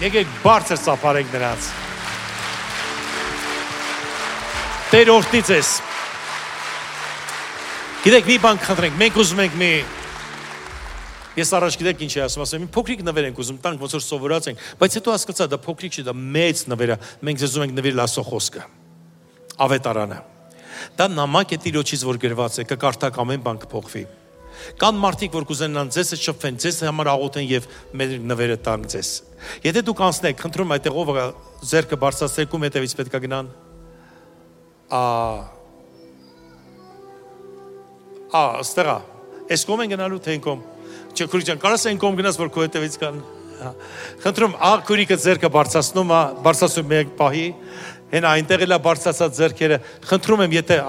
եկեք բարձր ծափարենք նրանց։ Տեր օրհնի ձեզ։ Գիտեք, մի բան խնդրենք, մենք ուզում ենք մի Ես առաջ գիտեք ինչ է ասում, մի փոքրիկ նվեր ենք ուզում տանք, ոնց որ սովորած ենք, բայց հետո հասկացա, դա փոքրիկ չի, դա մեծ նվեր է, մենք ձեզ ուզում ենք նվիրել Աստծո խոսքը, ավետարանը։ Դա նամակ է Տիրոջից, որ գրված է, կկարդաք ամեն բան կփոխվի։ Կան մարդիկ, որ կուզենան ձեզ շփվեն, ձեզ համար աղոթեն եւ մեր նվերը տան ձեզ։ Եթե դուք անցնեք, խնդրում այդտեղ ով ձեռքը բարձրացրեք ու հետևից պետք է գնան։ Ստեղա, այս կողմ են գնալու թե այն կողմ։ Չէ, քուրիկյան, կարաս այն կողմ գնաս, որ քո հետևից կան։ Խնդրում, քուրիկը ձեռքը բարձրացնում մեկ պահի, հենա այնտեղ էլա բարձրացած ձեռքերը։ Խնդրում եմ, եթե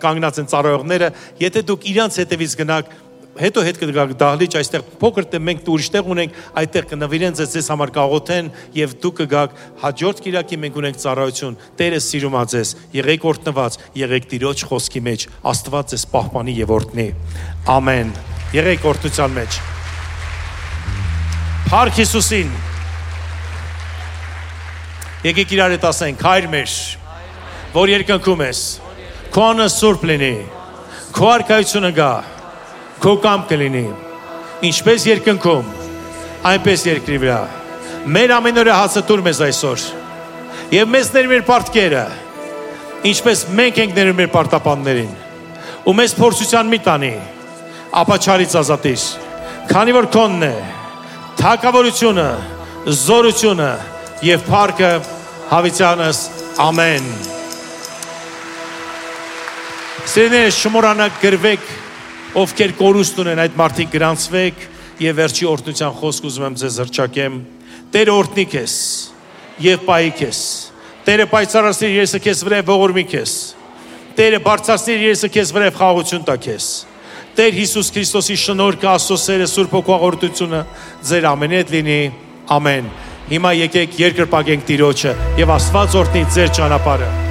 կանգնած են ծառայողները, եթե դուք իրանց հետևից գնաք, հետո հետ կգաք դահլիճ, այստեղ փոքր մենք ուրիշ տեղ ունենք, այդտեղ կնվիրեն ձեզ համար կաղոթեն եւ դուք կգաք հաջորդ կիրակի մենք ունենք ծառայություն։ Տերը սիրում է ձեզ, եղեք օրհնված, եղեք Տիրոջ խոսքի մեջ, Աստված ձեզ պահպանի եւ օրհնի։ Ամեն։ Եղեք օրհնության մեջ։ Փառք Հիսուսին։ Եկեք իրար հետ ասենք, Հայր մեր, որ երկնքում ես, քո անունը սուրբ լինի, քո արքայությունը գա, քո կամքը լինի, ինչպես երկնքում, այնպես երկրի վրա։ Մեր ամենօրյա հացը տուր մեզ այսօր, եւ մեզ ներ մեր պարտքերը, ինչպես մենք ենք ներում մեր պարտապաններին, ու մեզ փորձության մի տանի, ապա չարից ազատիր, քանի որ քոնն է թագավորությունը, զորությունը եւ փառքը հավիտյանս ամեն։ Սիրելիներ, շմորանակ գրվեք, ովքեր կորուստ ունեն, այդ մարդիկ գրանցվեք եւ վերջի օրհնության խոսք ուզում եմ ձեզ հռչակեմ։ Տերը օրհնի քեզ եւ պահի քեզ։ Տերը պայծառացնի իր երեսը քեզ վրա ողորմի քեզ։ Տերը բարձրացնի իր երեսը քեզ վրա խաղաղություն տա քեզ։ Տեր Հիսուս Քրիստոսի շնորհքը, Աստծո սերը, Սուրբ Հոգու աղոթությունը ձեր ամենի հետ լինի։ Ամեն։ Հիմա եկեք երկրպագենք Տիրոջը եւ Աստված օրհնի ձեր ճանապարհը։